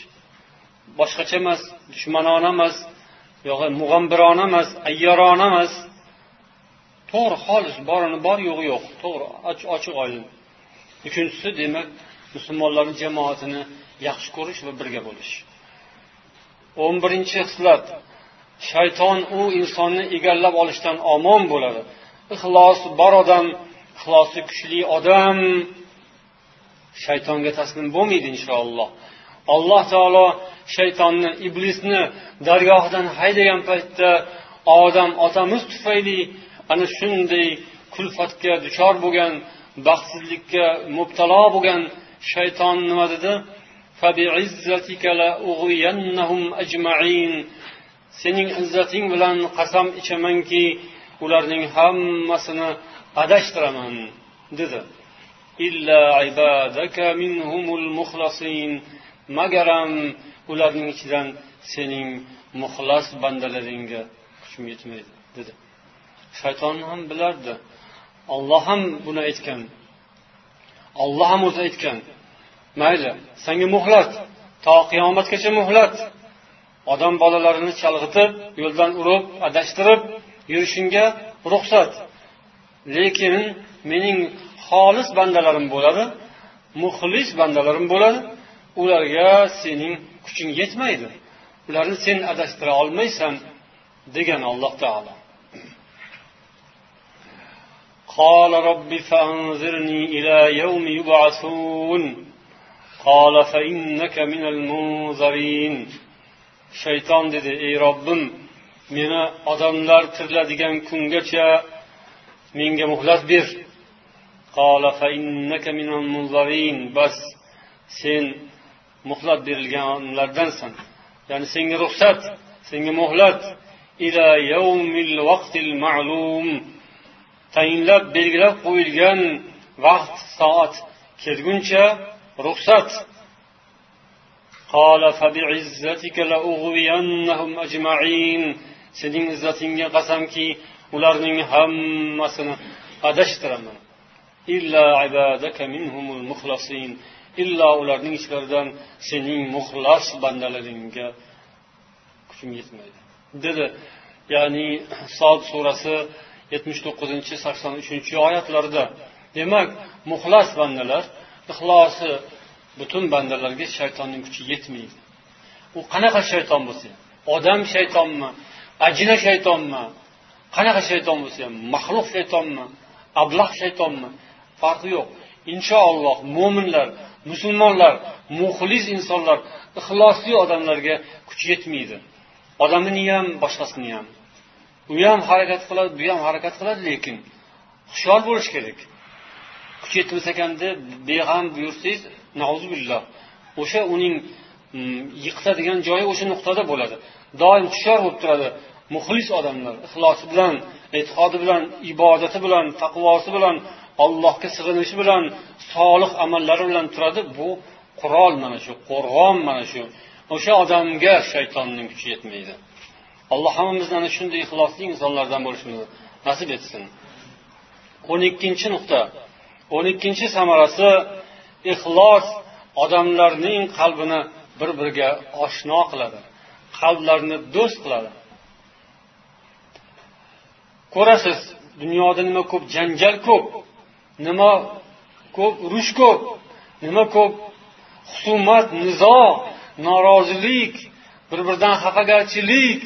Boshqacha emas, dushmanona emas, yo'q mug'ambirona emas, ayyorona emas. To'g'ri, xolis, borini bor, yo'g'i yo'q. To'g'ri, ochiq oydin. Uchinchisi, demak, musulmonlarning jamoatini yaxshi ko'rish va birga bo'lish. 11-xislat. Shayton u insonni egallab olishdan omon bo'ladi. Ixlos bor odam, ixlosi kuchli odam shaytonga taslim bo'lmaydi inshaalloh. Alloh taolo shaytonni, iblisni dargohidan haydagan paytda Odam otamiz tufayli ana shunday kulfatga duchor bo'lgan, baxtsizlikka mubtalo bo'lgan shayton nima dedi? Fabi'izzatika la ughwiyannahum ajma'in. Sening izzating bilan qasam ichamanki, ularning hammasini adashtiraman dedi. Illa ibadaka minhumul mukhlasin. Magaram ularning ichidan sening muxlas bandalaringga kuchim yetmaydi dedi. Shayton ham bilardi. Alloh ham buni aytgan. Alloh ham o'zi aytgan. Mayli, senga muhlat, to qiyomatgacha muhlat. Odam bolalarini chalg'itib, yo'ldan urib, adashtirib yurishingga ruxsat. Lekin mening xolis bandalarim bo'ladi, muxlis bandalarim bo'ladi. Ularga sening kuching yetmaydi. Ularni sen adashtira olmaysan degan Alloh taolo. قال رب فأنظرني إلى يوم يبعثون قال فإنك من المنظرين. Shayton dedi: ey Robbim, meni odamlar tiriladigan kungacha menga muhlat ber. قال فإنك من المنظرين. Bas sen muhlat berilganlardansan. Ya'ni senga ruxsat, senga muhlat ila yawmil vaqtil ma'lum, tayinlab belgilab qo'yilgan vaqt soat kelguncha ruxsat. Qala fabi'izzatika la'ughwiyannahum ajma'in. Sening izzatingga qasamki, ularning hammasini adashtiraman. Illa ibadaka minhumul mukhlasin. Illa ularning ichlaridan sening muxlas bandalaringga kuchim yetmaydi, dedi. Ya'ni Sod surasi 79-83 oyatlarida. Demak, muxlas bandalar, ixlosi butun bandalarga shaytonning kuchi yetmaydi. U qanaqa shayton bo'lsa, odam shaytonmi, ajina shaytonmi, qanaqa shayton bo'lsa ham, maxluq shaytonmi, ablah shaytonmi, farqi yo'q. Inshaalloh mo'minlar, musulmonlar, muxlis insonlar, ixlosli odamlarga kuch yetmaydi. Odamini ham, boshqasini ham. U ham harakat qiladi, bu ham harakat qiladi, lekin hushyor bo'lish kerak. Kuch yetmasa ekan deb beg'am buyursangiz, nauzubillah, o'sha uning yiqitadigan joyi o'sha nuqtada bo'ladi. Doim hushyor bo'lib turadi muxlis odamlar, ixlosi bilan, e'tiqodi bilan, ibodati bilan, taqvosi bilan, Allohga sig'inishi bilan, solih amallari bilan turadi. Bu qurol mana shu, qo'rg'on mana shu. O'sha odamga shaytonning kuchi yetmaydi. Alloh hammamizni ana shunday ixlosli insonlardan bo'lishimizni nasib etsin. 12 nuqta. 12 samarasi ixlos odamlarning qalbini bir-biriga oshno qiladi, qalblarni do'st qiladi. Ko'rasiz, dunyoda nima ko'p janjal ko'p, nima ko'p urush ko'p, nima ko'p husumat, nizo, norozilik, bir-biridan xafagarchilik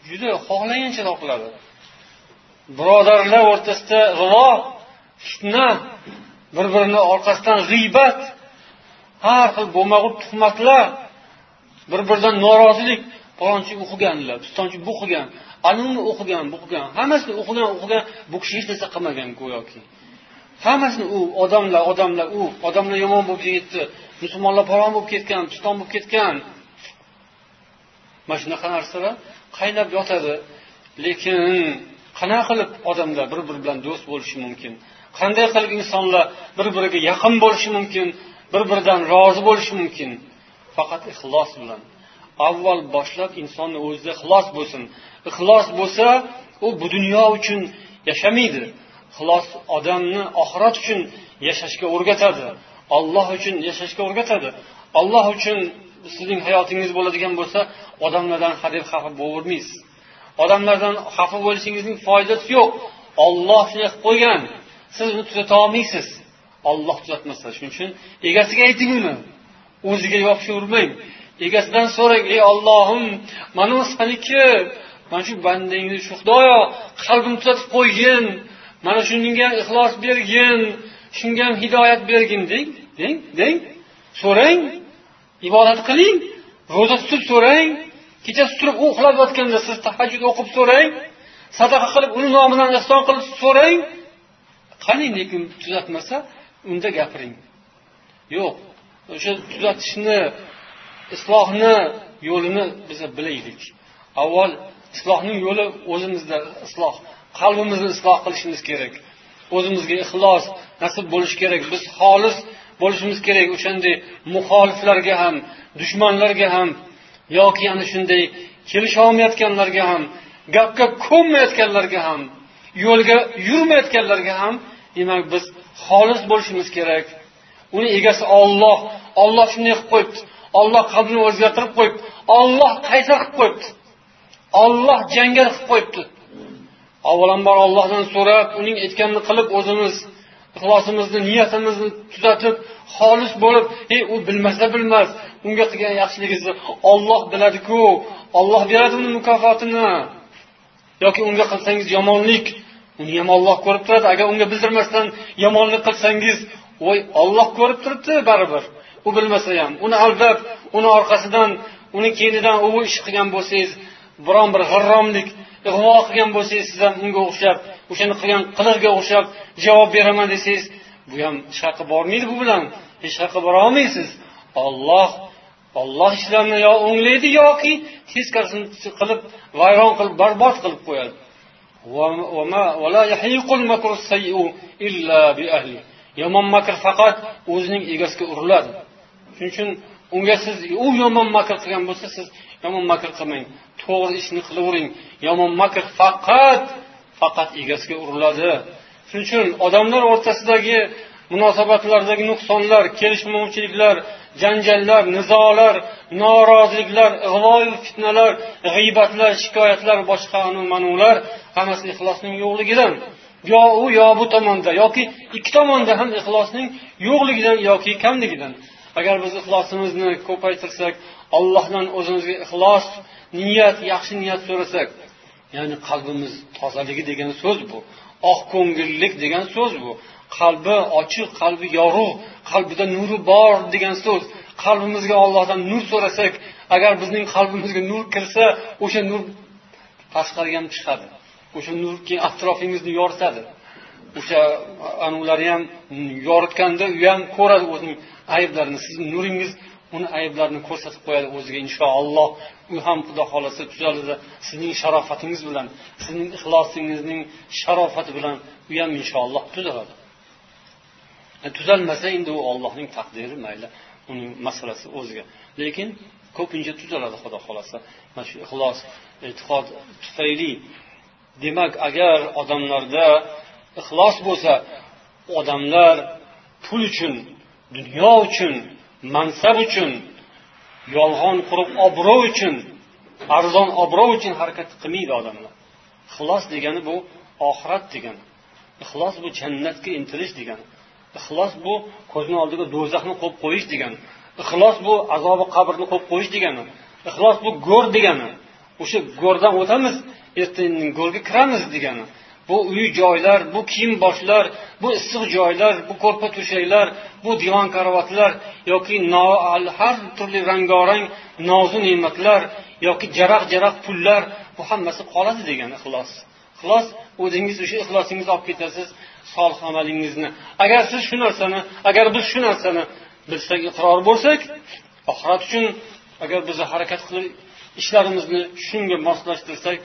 juda xohlagancha topiladi. Birodarlar o'rtasida g'ilo, fitna, bir-birini orqasidan g'iybat, har xil bo'lmag'ur tuhmatlar, bir-biridan norozilik, palonchi o'qiganlar, pistonchi bu qilgan, anuni o'qigan, bu qilgan, hammasini o'qigan, bu kishi hech narsa qilmagan go'yoki. Hammasini u odamlar, u odamlar yomon bo'lib ketdi, musulmonlar palon bo'lib ketgan, piston bo'lib ketgan. Mana shunaqa narsalar qaynab yotadi. Lekin qanaqa qilib odamlar bir-biri bilan do'st bo'lishi mumkin? Qanday qilib insonlar bir-biriga yaqin bo'lishi mumkin, bir-biridan rozi bo'lishi mumkin? Faqat ixlos bilan. Avval boshlab insonning o'zida ixlos bo'lsin. Ixlos bo'lsa, u bu dunyo uchun yashamaydi. Ixlos odamni oxirat uchun yashashga o'rgatadi. Alloh uchun yashashga o'rgatadi. Alloh uchun sizning hayotingiz bo'ladigan bo'lsa, odamlardan hadeb xafa bo'lmaysiz. Odamlardan xafa bo'lishingizning foydasi yo'q. Alloh shunday qilib qo'ygan. Siz uni tuzata olmaysiz. Alloh tuzatmasa. Shuning uchun egasiga ayting uni. O'ziga yopishavermang. Egasidan so'rang, ey Allohim, mana u seniki, mana shu bandangni shu Xudoyo qalbimni tuzatib qo'ygin, mana shunga ixlos bergin, shunga ham hidoyat bergin deng, deng, deng. So'rang, ibodat qiling, ro'za tutib so'rang, kechasi turib u uxlab yotganda siz tahajjud o'qib so'rang, sadaqa qilib uni nomidan ihson qilib so'rang. Qani lekin tuzatmasa, unda gapiring. Yo'q, o'sha tuzatishni, islohni yo'lini biz bilaylik. Avval islohning yo'li o'zimizda isloh, qalbimizni isloh qilishimiz kerak. O'zimizga ixlos nasib bo'lishi kerak. Biz xolis bo'lishimiz kerak o'shanday muxoliflarga ham, dushmanlarga ham, yoki ana shunday kelisha olmayotganlarga ham, gapga ko'nmayotganlarga ham, yo'lga yurmayotganlarga ham, demak biz xolis bo'lishimiz kerak. Uni egasi Alloh. Alloh shunday qilib qo'yibdi. Alloh qalbini o'zgartirib qo'yibdi. Alloh qaysar qilib qo'yibdi. Alloh jangal qilib qo'yibdi. Avvalambor Allohdan so'rab, uning aytganini qilib, o'zimiz ixlosimizni, niyatimizni tuzatib, xolis bo'lib, u bilmasa bilmas, unga qilgan yaxshiligingizni Alloh biladi-ku, Alloh beradi uni mukofotini. Yoki unga qilsangiz yomonlik, uni ham Alloh ko'rib turadi. Agar unga bildirmasdan yomonlik qilsangiz, voy, Alloh ko'rib turibdi baribir. U bilmasa ham, uni aldab, uni orqasidan, uni keyinidan u ish qilgan bo'lsangiz, biron bir g'irromlik, ig'vo qilgan bo'lsangiz, siz ham unga o'xshab, o'shani qilgan qilig'iga o'xshab javob beraman desangiz, bu ham hech qayerga bormaydi bu bilan. Hech qayerga bora olmaysiz. Alloh Alloh ishlarni yo o'nglaydi yoki teskarisini qilib, vayron qilib, barbod qilib qo'yadi. Yomon makr faqat o'zining egasiga uriladi. Shuning uchun unga siz u yomon makr qilgan bo'lsa, siz yomon makr qilmang, to'g'ri ishni qilavering. Yomon makr faqat egasiga uriladi. Shuning uchun odamlar o'rtasidagi munosabatlardagi nuqsonlar, kelishmovchiliklar, janjallar, nizolar, noroziliklar, ig'vo fitnalar, g'iybatlar, shikoyatlar, boshqa anu-manular hammasi ixlosning yo'qligidan. Yo u yo bu tomonda yoki ikki tomonda ham ixlosning yo'qligidan yoki kamligidan. Agar biz ixlosimizni ko'paytirsak, Allohdan o'zimizga ixlos, niyat, yaxshi niyat so'rasak, ya'ni qalbimiz tozaligi degan so'z bu, oq ko'ngillik degan so'z bu, qalbi ochiq, qalbi yorug', qalbida nuri bor degan so'z. Qalbimizga Allohdan nur so'rasak, agar bizning qalbimizga nur kirsa, o'sha nur tashqariga ham chiqadi. O'sha nur keyin atrofingizni yoritadi. O'sha anulari ham yoritganda u ham ko'radi o'zining ayblarini. Sizning nuringiz uni ayblarini ko'rsatib qo'yadi o'ziga inshaalloh. U ham Xudo xolasa tuzaladi. Sizning sharofatingiz bilan, sizning ixlosingizning sharofati bilan u ham inshaalloh tuzaladi. Tuzalmasa endi u Allohning taqdiri, mayli, uning masalasi o'ziga. Lekin ko'pincha tuzaladi Xudo xolasa. Mana shu ixlos, e'tiqod tufayli. Demak, agar odamlarda ixlos bo'lsa, odamlar pul uchun, dunyo uchun, mansab uchun, yolg'on qurib obro' uchun, arzon obro' uchun harakat qilmaydi odamlar. Ixlos degani bu oxirat degani. Ixlos bu jannatga intilish degani. Ixlos bu ko'zni oldiga do'zaxni qo'yib qo'yish degani. Ixlos bu azobi qabrni qo'yib qo'yish degani. Ixlos bu go'r degani. O'sha go'rdan o'tamiz, ertaga go'rga kiramiz degani. Bu uy joylar, bu kiyim boshlar, bu issiq joylar, bu ko'rpa to'shaklar, bu divan karavotlar yoki har turli rangorang nozu ne'matlar yoki jaraq-jaraq pullar, bu hammasi qoladi degani ixlos. Ixlos o'zingiz o'sha ixlosingizni olib ketasiz, solih amalingizni. Agar siz shu narsani, agar biz shu narsani bilsak, iqror bo'lsak, oxirat uchun agar biz harakat qilib ishlarimizni shunga moslashtirsak,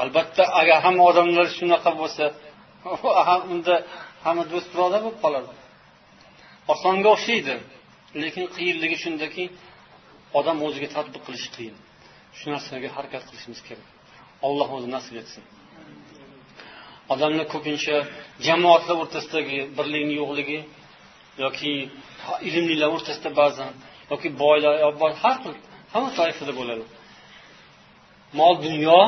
albatta agar hamma odamlar shunaqa bo'lsa, unda hamma do'st birodar bo'lib qoladi. Osonga o'xshaydi, lekin qiyinligi shundaki, odam o'ziga tatbiq qilishi qiyin. Shu narsaga harakat qilishimiz kerak. Alloh o'zi nasib etsin. Odamlar ko'pincha jamoatlar o'rtasidagi birlikning yo'qligi yoki ilmlilar o'rtasida ba'zan yoki boylar, har xil hamma toifada bo'ladi. Mol, dunyo,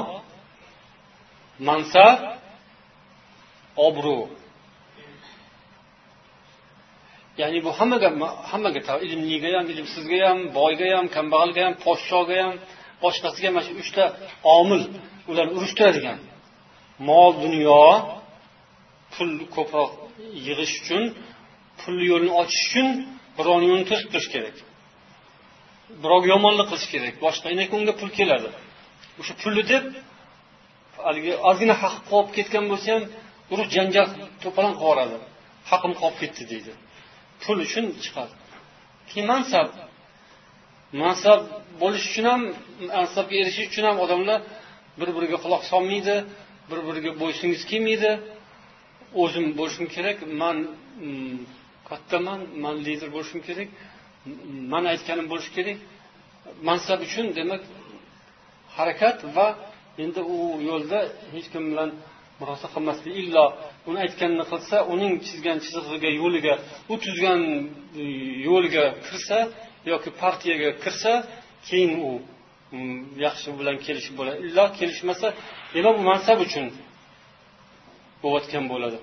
mansab, obro'. Ya'ni bu hammaga ilmliga ham, ilmsizga ham, boyga ham, kambag'alga ham, podshoga ham, boshqasiga mana shu uchta omil ularni urushtiradigan. Mol, dunyo, pul ko'proq yig'ish uchun, pul yo'lini ochish uchun birovning yo'lini to'sib turish kerak. Birovga yomonlik qilish kerak. Boshqa inak unga pul keladi. O'sha pulni deb haligi ozgina haq qolib ketgan bo'lsa ham urush janjal to'polon qilib yuboradi. Haqim qolib ketdi deydi. Pul uchun chiqadi. Keyin mansab. Mansab bo'lish uchun ham, mansabga erishish uchun ham odamlar bir-biriga quloq solmaydi, bir-biriga bo'ysungisi kelmaydi. O'zim bo'lishim kerak, men kattaman, men lider bo'lishim kerak, men aytganim bo'lishi kerak. Mansab uchun demak harakat va endi u yo'lda hech kim bilan murosa qilmaslik, illo uni aytganini qilsa, uning chizgan chizig'iga, yo'liga, u tuzgan yo'lga kirsa yoki partiyaga kirsa, keyin u yaxshi bilan kelishib bo'ladi. Illo kelishmasa, demak bu mansab uchun bo'layotgan bo'ladi.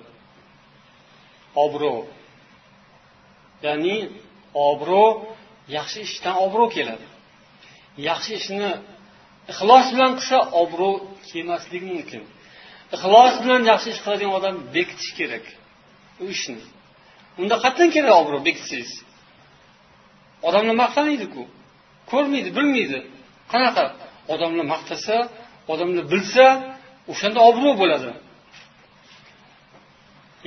Obro'. Ya'ni obro' yaxshi ishdan obro' keladi. Yaxshi ishni ixlos bilan qilsa obro' kelmasligi mumkin. Ixlos bilan yaxshi ish qiladigan odam bekitish kerak u ishni. Unda qatdan kerak obro' bekitsangiz. Odamlar maqtamaydi-ku. Ko'rmaydi, bilmaydi. Qanaqa? Odamlar maqtasa, odamlar bilsa, o'shanda obro' bo'ladi.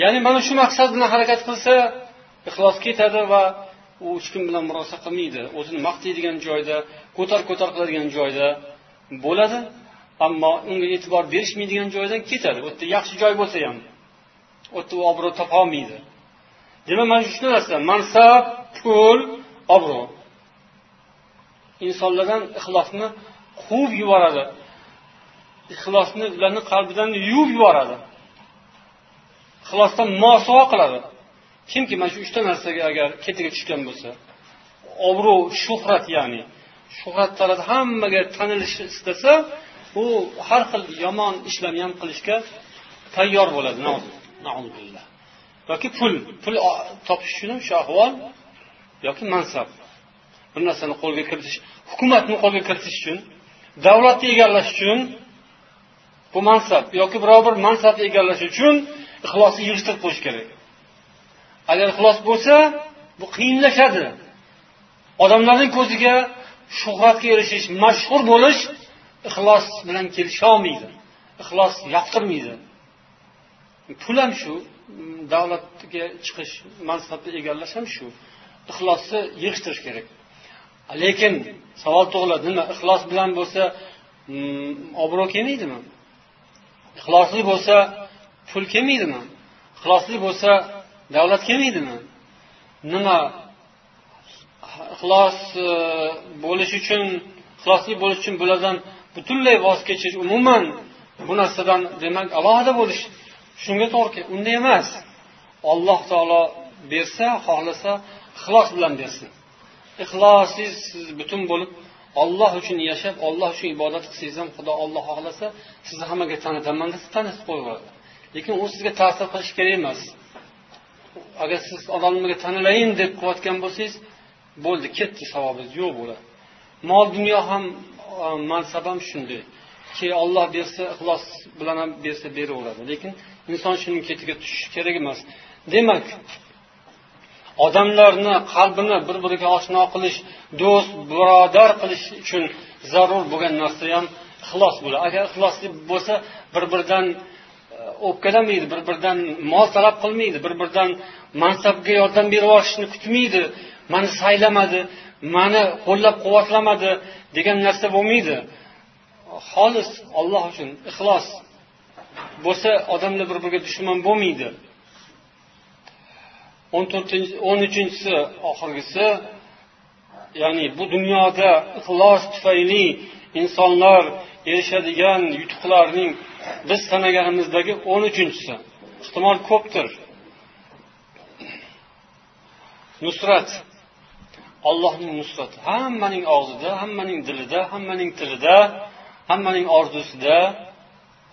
Ya'ni mana shu maqsad bilan harakat qilsa, ixlos ketadi va u hech kim bilan murosa qilmaydi, o'zini maqtaydigan joyda, ko'tar-ko'tar qiladigan joyda bo'ladi, ammo unga e'tibor berishmaydigan joydan ketadi. U yerda yaxshi joy bo'lsa ham, u yerda u obro' topa olmaydi. Demak, mana shu narsa, mansab, pul, obro' insonlardan ixlosni quvib yuboradi. Ixlosni ularning qalbidan yuvib yuboradi. Ixlosdan mosuvo qiladi. Kimki mana shu uchta narsaga agar ketiga tushgan bo'lsa, obro', shuhrat, ya'ni shuhrat talab, hammaga tanilishni istasa, u har xil yomon ishlarni ham qilishga tayyor bo'ladi. Na'udzubillah. Yoki pul topish uchun ham shu ahvol, yoki mansab. Bir narsani qo'lga kiritish, hukumatni qo'lga kiritish uchun, davlatni egallash uchun bu mansab yoki biror bir mansabni egallash uchun ixlosni yig'ishtirib qo'yish kerak. Agar ixlos bo'lsa, bu qiyinlashadi. Odamlarning ko'ziga shuhratga erishish, mashhur bo'lish ixlos bilan kelisha olmaydi. Ixlos yoqtirmaydi. Pul ham shu, davlatga chiqish, mansabni egallash ham shu. Ixlosni yig'ishtirish kerak. Lekin savol tug'iladi, nima ixlos bilan bo'lsa obro' kelmaydimi? Ixlosli bo'lsa pul kelmaydimi? Ixlosli bo'lsa davlat kelmaydimi? Nima ixlos bo'lish uchun, ixlosli bo'lish uchun bulardan butunlay voz kechish, umuman bu narsadan demak alohida bo'lish shunga to'g'ri keladi. Unday emas. Alloh taolo bersa, xohlasa ixlos bilan bersin. Ixlossiz siz butun bo'lib Alloh uchun yashab, Alloh uchun ibodat qilsangiz ham Xudo Alloh xohlasa sizni hammaga tanitaman desa tanitib qo'yaveradi. Lekin u sizga ta'sir qilishi kerak emas. Agar siz odamlarga tanilayin deb qilayotgan bo'lsangiz, bo'ldi, ketdi, savobingiz yo'q bo'ladi. Mol dunyo ham, mansab ham shunday. Ki Alloh bersa, ixlos bilan ham bersa beraveradi. Lekin inson shuning ketiga tushishi kerak emas. Demak, odamlarni qalbini bir-biriga oshno qilish, do'st, birodar qilish uchun zarur bo'lgan narsa ham ixlos bo'ladi. Agar ixlosli bo'lsa, bir-biridan o'pkalamaydi, bir-biridan mol talab qilmaydi, bir-biridan mansabga yordam berib olishni kutmaydi, meni saylamadi, meni qo'llab-quvvatlamadi degan narsa bo'lmaydi. Xolis Alloh uchun ixlos bo'lsa, odamlar bir-biriga dushman bo'lmaydi. 13-si oxirgisi, ya'ni bu dunyoda ixlos tufayli insonlar erishadigan yutuqlarning biz sanaganimizdagi 13-si. Ehtimol ko'pdir. Nusrat. Allohning nusrati hammaning og'zida, hammaning dilida, hammaning tilida, hammaning orzusida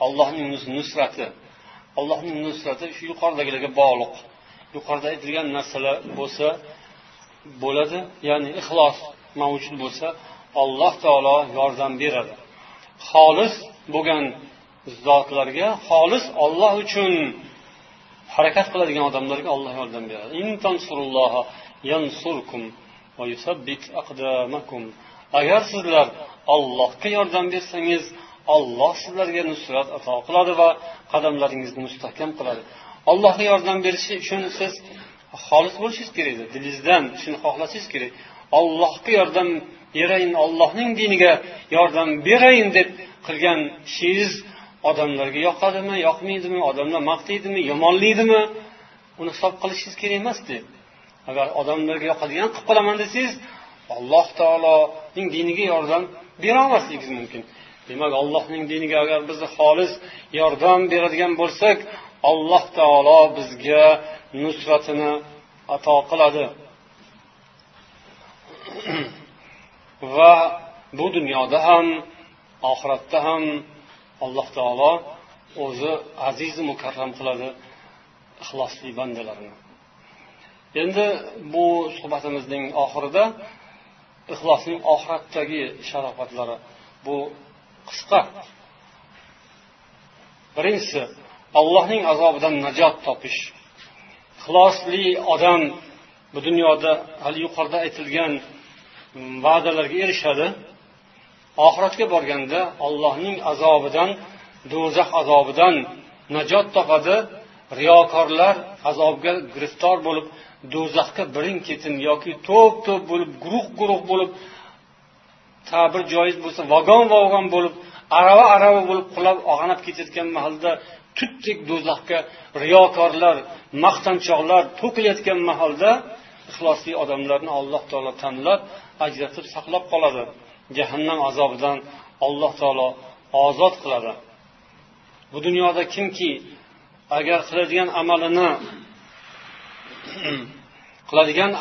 Allohning nusrati. Allohning nusrati shu yuqoridagilarga bog'liq. Yuqorida aytilgan narsalar bo'lsa bo'ladi, ya'ni ixlos mavjud bo'lsa Alloh taolo yordam beradi. Xolis bo'lgan zotlarga, xolis Alloh uchun harakat qiladigan odamlarga Alloh yordam beradi. In tansurulloha yansurkum va yusabbit aqdamakum. Agar sizlar Allohga yordam bersangiz, Alloh sizlarga nusrat ato qiladi va qadamlaringizni mustahkam qiladi. Allohga yordam berishi uchun siz xolis bo'lishingiz kerak edi. Dilingizdan shuni xohlashingiz kerak. Allohga yordam berayin, Allohning diniga yordam berayin deb qilgan ishingiz odamlarga yoqadimi, yoqmaydimi, odamlar maqtaydimi, yomonlaydimi, uni hisob qilishingiz kerak emas-da. Agar odamlarga yoqadigan qilib qolaman desangiz, Alloh taoloning diniga yordam bera olmasligingiz mumkin. Demak, Allohning diniga agar biz xolis yordam beradigan bo'lsak, Alloh taolo bizga nusratini ato qiladi. Va bu dunyoda ham, oxiratda ham Alloh taolo o'zi aziz mukarram qiladi ixlosli bandalarini. Endi bu suhbatimizning oxirida ixlosning oxiratdagi sharofatlari bu qisqa. Birinchisi, Allohning azobidan najot topish. Ixlosli odam bu dunyoda hali yuqorida aytilgan va'dalarga erishadi. Oxiratga borganda Allohning azobidan, do'zax azobidan najot topadi. Riyokorlar azobga giriftor bo'lib, do'zaxga birin-ketin yoki to'p-to'p bo'lib, guruh-guruh bo'lib, ta'bir joiz bo'lsa, vagon-vagon bo'lib, arava-arava bo'lib qulab og'anab ketayotgan mahalda tutdek do'zaxga riyokorlar, maqtanchoqlar to'kilayotgan mahalda ixlosli odamlarni Alloh taolo tanlab, ajratib saqlab qoladi. Jahannam azobidan Alloh taolo ozod qiladi. Bu dunyoda kimki agar qiladigan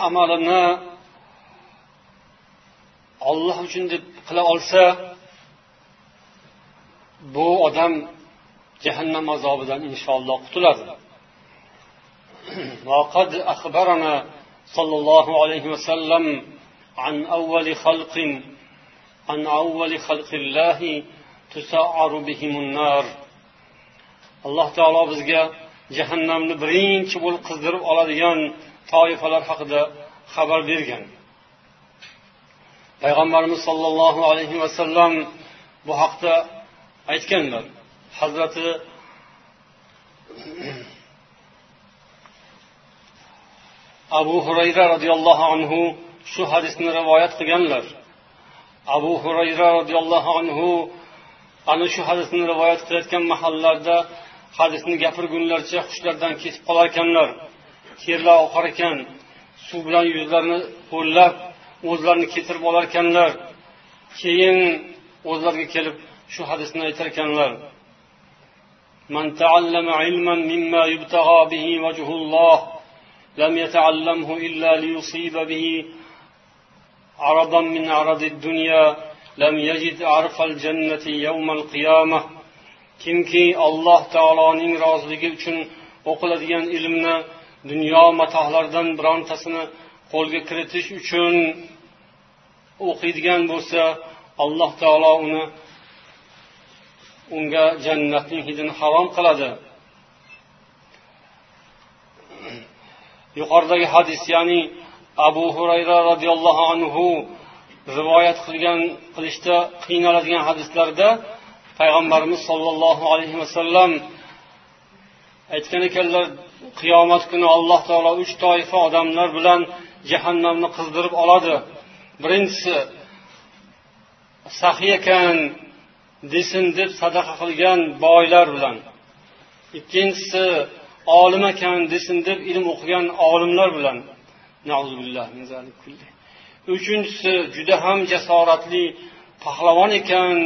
amalini Alloh uchun deb qila olsa, bu odam jahannam azobidan inshaalloh qutuladi. Va qad akhbarana sallallohu alayhi va sallam an awwali khalqin an awwali khalqillahi tusa'aru bihimun nar. Alloh taolo bizga jahannamni birinchi bo'lib qizdirib oladigan toifalar haqida xabar bergan. Payg'ambarimiz sollallohu alayhi va sallam bu haqda aytganlar. Hazrati Abu Hurayra radhiyallohu anhu shu hadisni rivoyat qilganlar. Abu Hurayra radhiyallohu anhu ana shu hadisni rivoyat qilayotgan mahallarda hadisni gapirgunlarcha hushlardan ketib qolar ekanlar. Terlar oqar ekan, suv bilan yuzlarini ho'llab, o'zlarini ketirib olar ekanlar. Keyin o'zlariga kelib shu hadisni aytar ekanlar. Man ta'allama ilman mimma yubtag'a bihi wajhulloh lam yata'allamhu illa liyusiba bihi aradan min aradid dunya lam yajid arfal jannati yawmal qiyamah. Kimki Alloh taoloning roziligi uchun o'qiladigan ilmni dunyo matohlaridan birontasini qo'lga kiritish uchun o'qiydigan bo'lsa, Alloh taolo uni unga jannatning hidini harom qiladi. Yuqoridagi hadis, ya'ni Abu Hurayra radhiyallohu anhu rivoyat qilishda qiynaladigan hadislarda Payg'ambarimiz sollallohu alayhi vasallam aytgan ekanlar, qiyomat kuni Alloh taolo 3 toifa odamlar bilan jahannamni qizdirib oladi. Birinchisi saxiy ekan desin deb sadaqa qilgan boylar bilan. Ikkinchisi olim ekan desin deb ilm o'qigan olimlar bilan. Na'uzubillah min zalik kulli. Uchinchisi juda ham jasoratli pahlavon ekan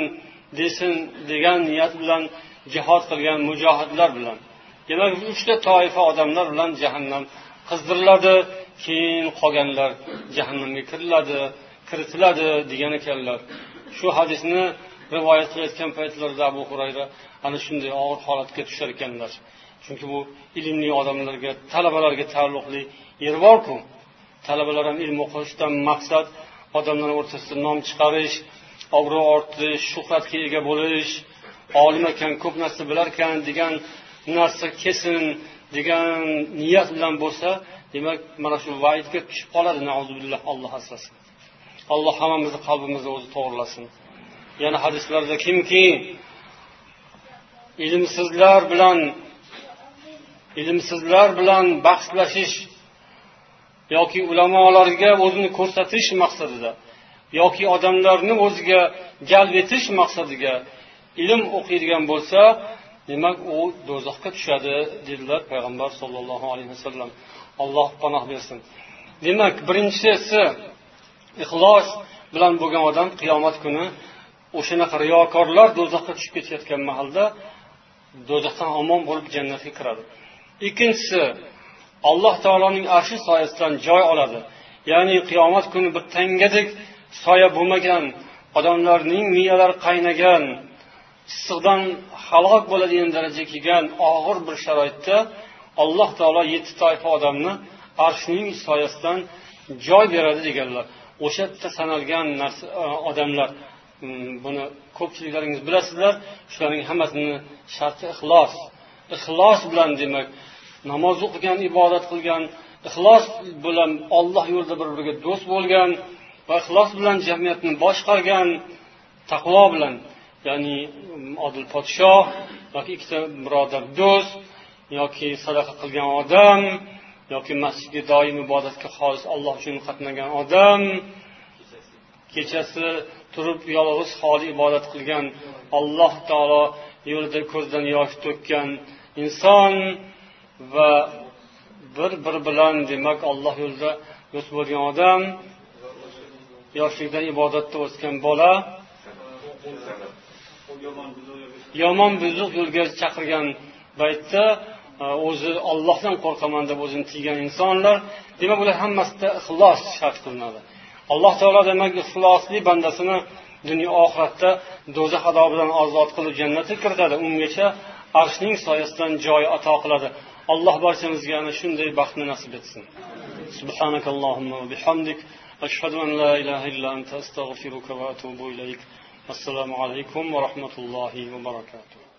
desin degan niyat bilan jihod qilgan mujohidlar bilan. Demak, 3 toifa odamlar bilan jahannam qizdiriladi, keyin qolganlar jahannamga kiritiladi degan ekanlar. Shu hadisni rivoyat qilayotgan paytlarida Abu Hurayra ana shunday og'ir holatga tushar ekanlar. Chunki bu ilmli odamlarga, talabalarga taalluqli yer bor-ku. Talabalar ham ilm o'qishdan maqsad odamlar o'rtasida nom chiqarish, obro' orttirish, shuhratga ega bo'lish, olim ekan, ko'p narsa bilar ekan degan narsa kelsin degan niyat bilan bo'lsa, demak mana shu vaidga tushib qoladi. Na'uzubillah, Alloh asrasin. Alloh hammamizni qalbimizni o'zi to'g'rilasin. Yana hadislarda kimki ilmsizlar bilan bahslashish yoki ulamolarga o'zini ko'rsatish maqsadida yoki odamlarni o'ziga jalb etish maqsadiga ilm o'qiydigan bo'lsa, demak u do'zaxga tushadi dedilar Payg'ambar sollallohu alayhi vasallam. Alloh panoh bersin. Demak, birinchisi ixlos bilan bo'lgan odam qiyomat kuni o'shanaqa riyokorlar do'zaxga tushib ketayotgan mahalda do'zaxdan omon bo'lib jannatga kiradi. Ikkinchisi Alloh taoloning arshi soyasidan joy oladi. Ya'ni qiyomat kuni bir tangadek soya bo'lmagan, odamlarning miyalari qaynagan, issiqdan halok bo'ladigan darajaga kelgan og'ir bir sharoitda Alloh taolo 7 toifa odamni arshining soyasidan joy beradi deganlar. O'sha yerda sanalgan narsa odamlar, buni ko'pchiliklaringiz bilasizlar, shularning hammasini sharti ixlos. Ixlos bilan demak namoz o'qigan, ibodat qilgan, ixlos bilan Alloh yo'lida bir-biriga do'st bo'lgan va ixlos bilan jamiyatni boshqargan, taqvo bilan, ya'ni odil podshoh yoki ikkita birodar do'st yoki sadaqa qilgan odam yoki masjidga doim ibodatga xolis Alloh uchun qatnagan odam, kechasi turib yolg'iz xoli ibodat qilgan, Alloh taolo yo'lida ko'zdan yosh to'kkan inson va bir-bir bilan demak Alloh yo'lida do'st bo'lgan odam, yoshlikdan ibodatda o'sgan bola, yomon buzuq yo'lga chaqirgan paytda o'zi Allohdan qo'rqaman deb o'zini tiygan insonlar, demak ular hammasida ixlos shart qilinadi. Alloh taolo demak ixlosli bandasini dunyo oxiratda do'zax azobidan ozod qilib jannatga kiritadi. Ungacha arshning soyasidan joy ato qiladi. Alloh barchamizga ana shunday baxtni nasib etsin. Subhanakallohumma va bihamdik, ashhadu an la ilaha illa anta, astag'firuka va atubu ilayk. Assalomu alaykum va rahmatullohi va barakatuh.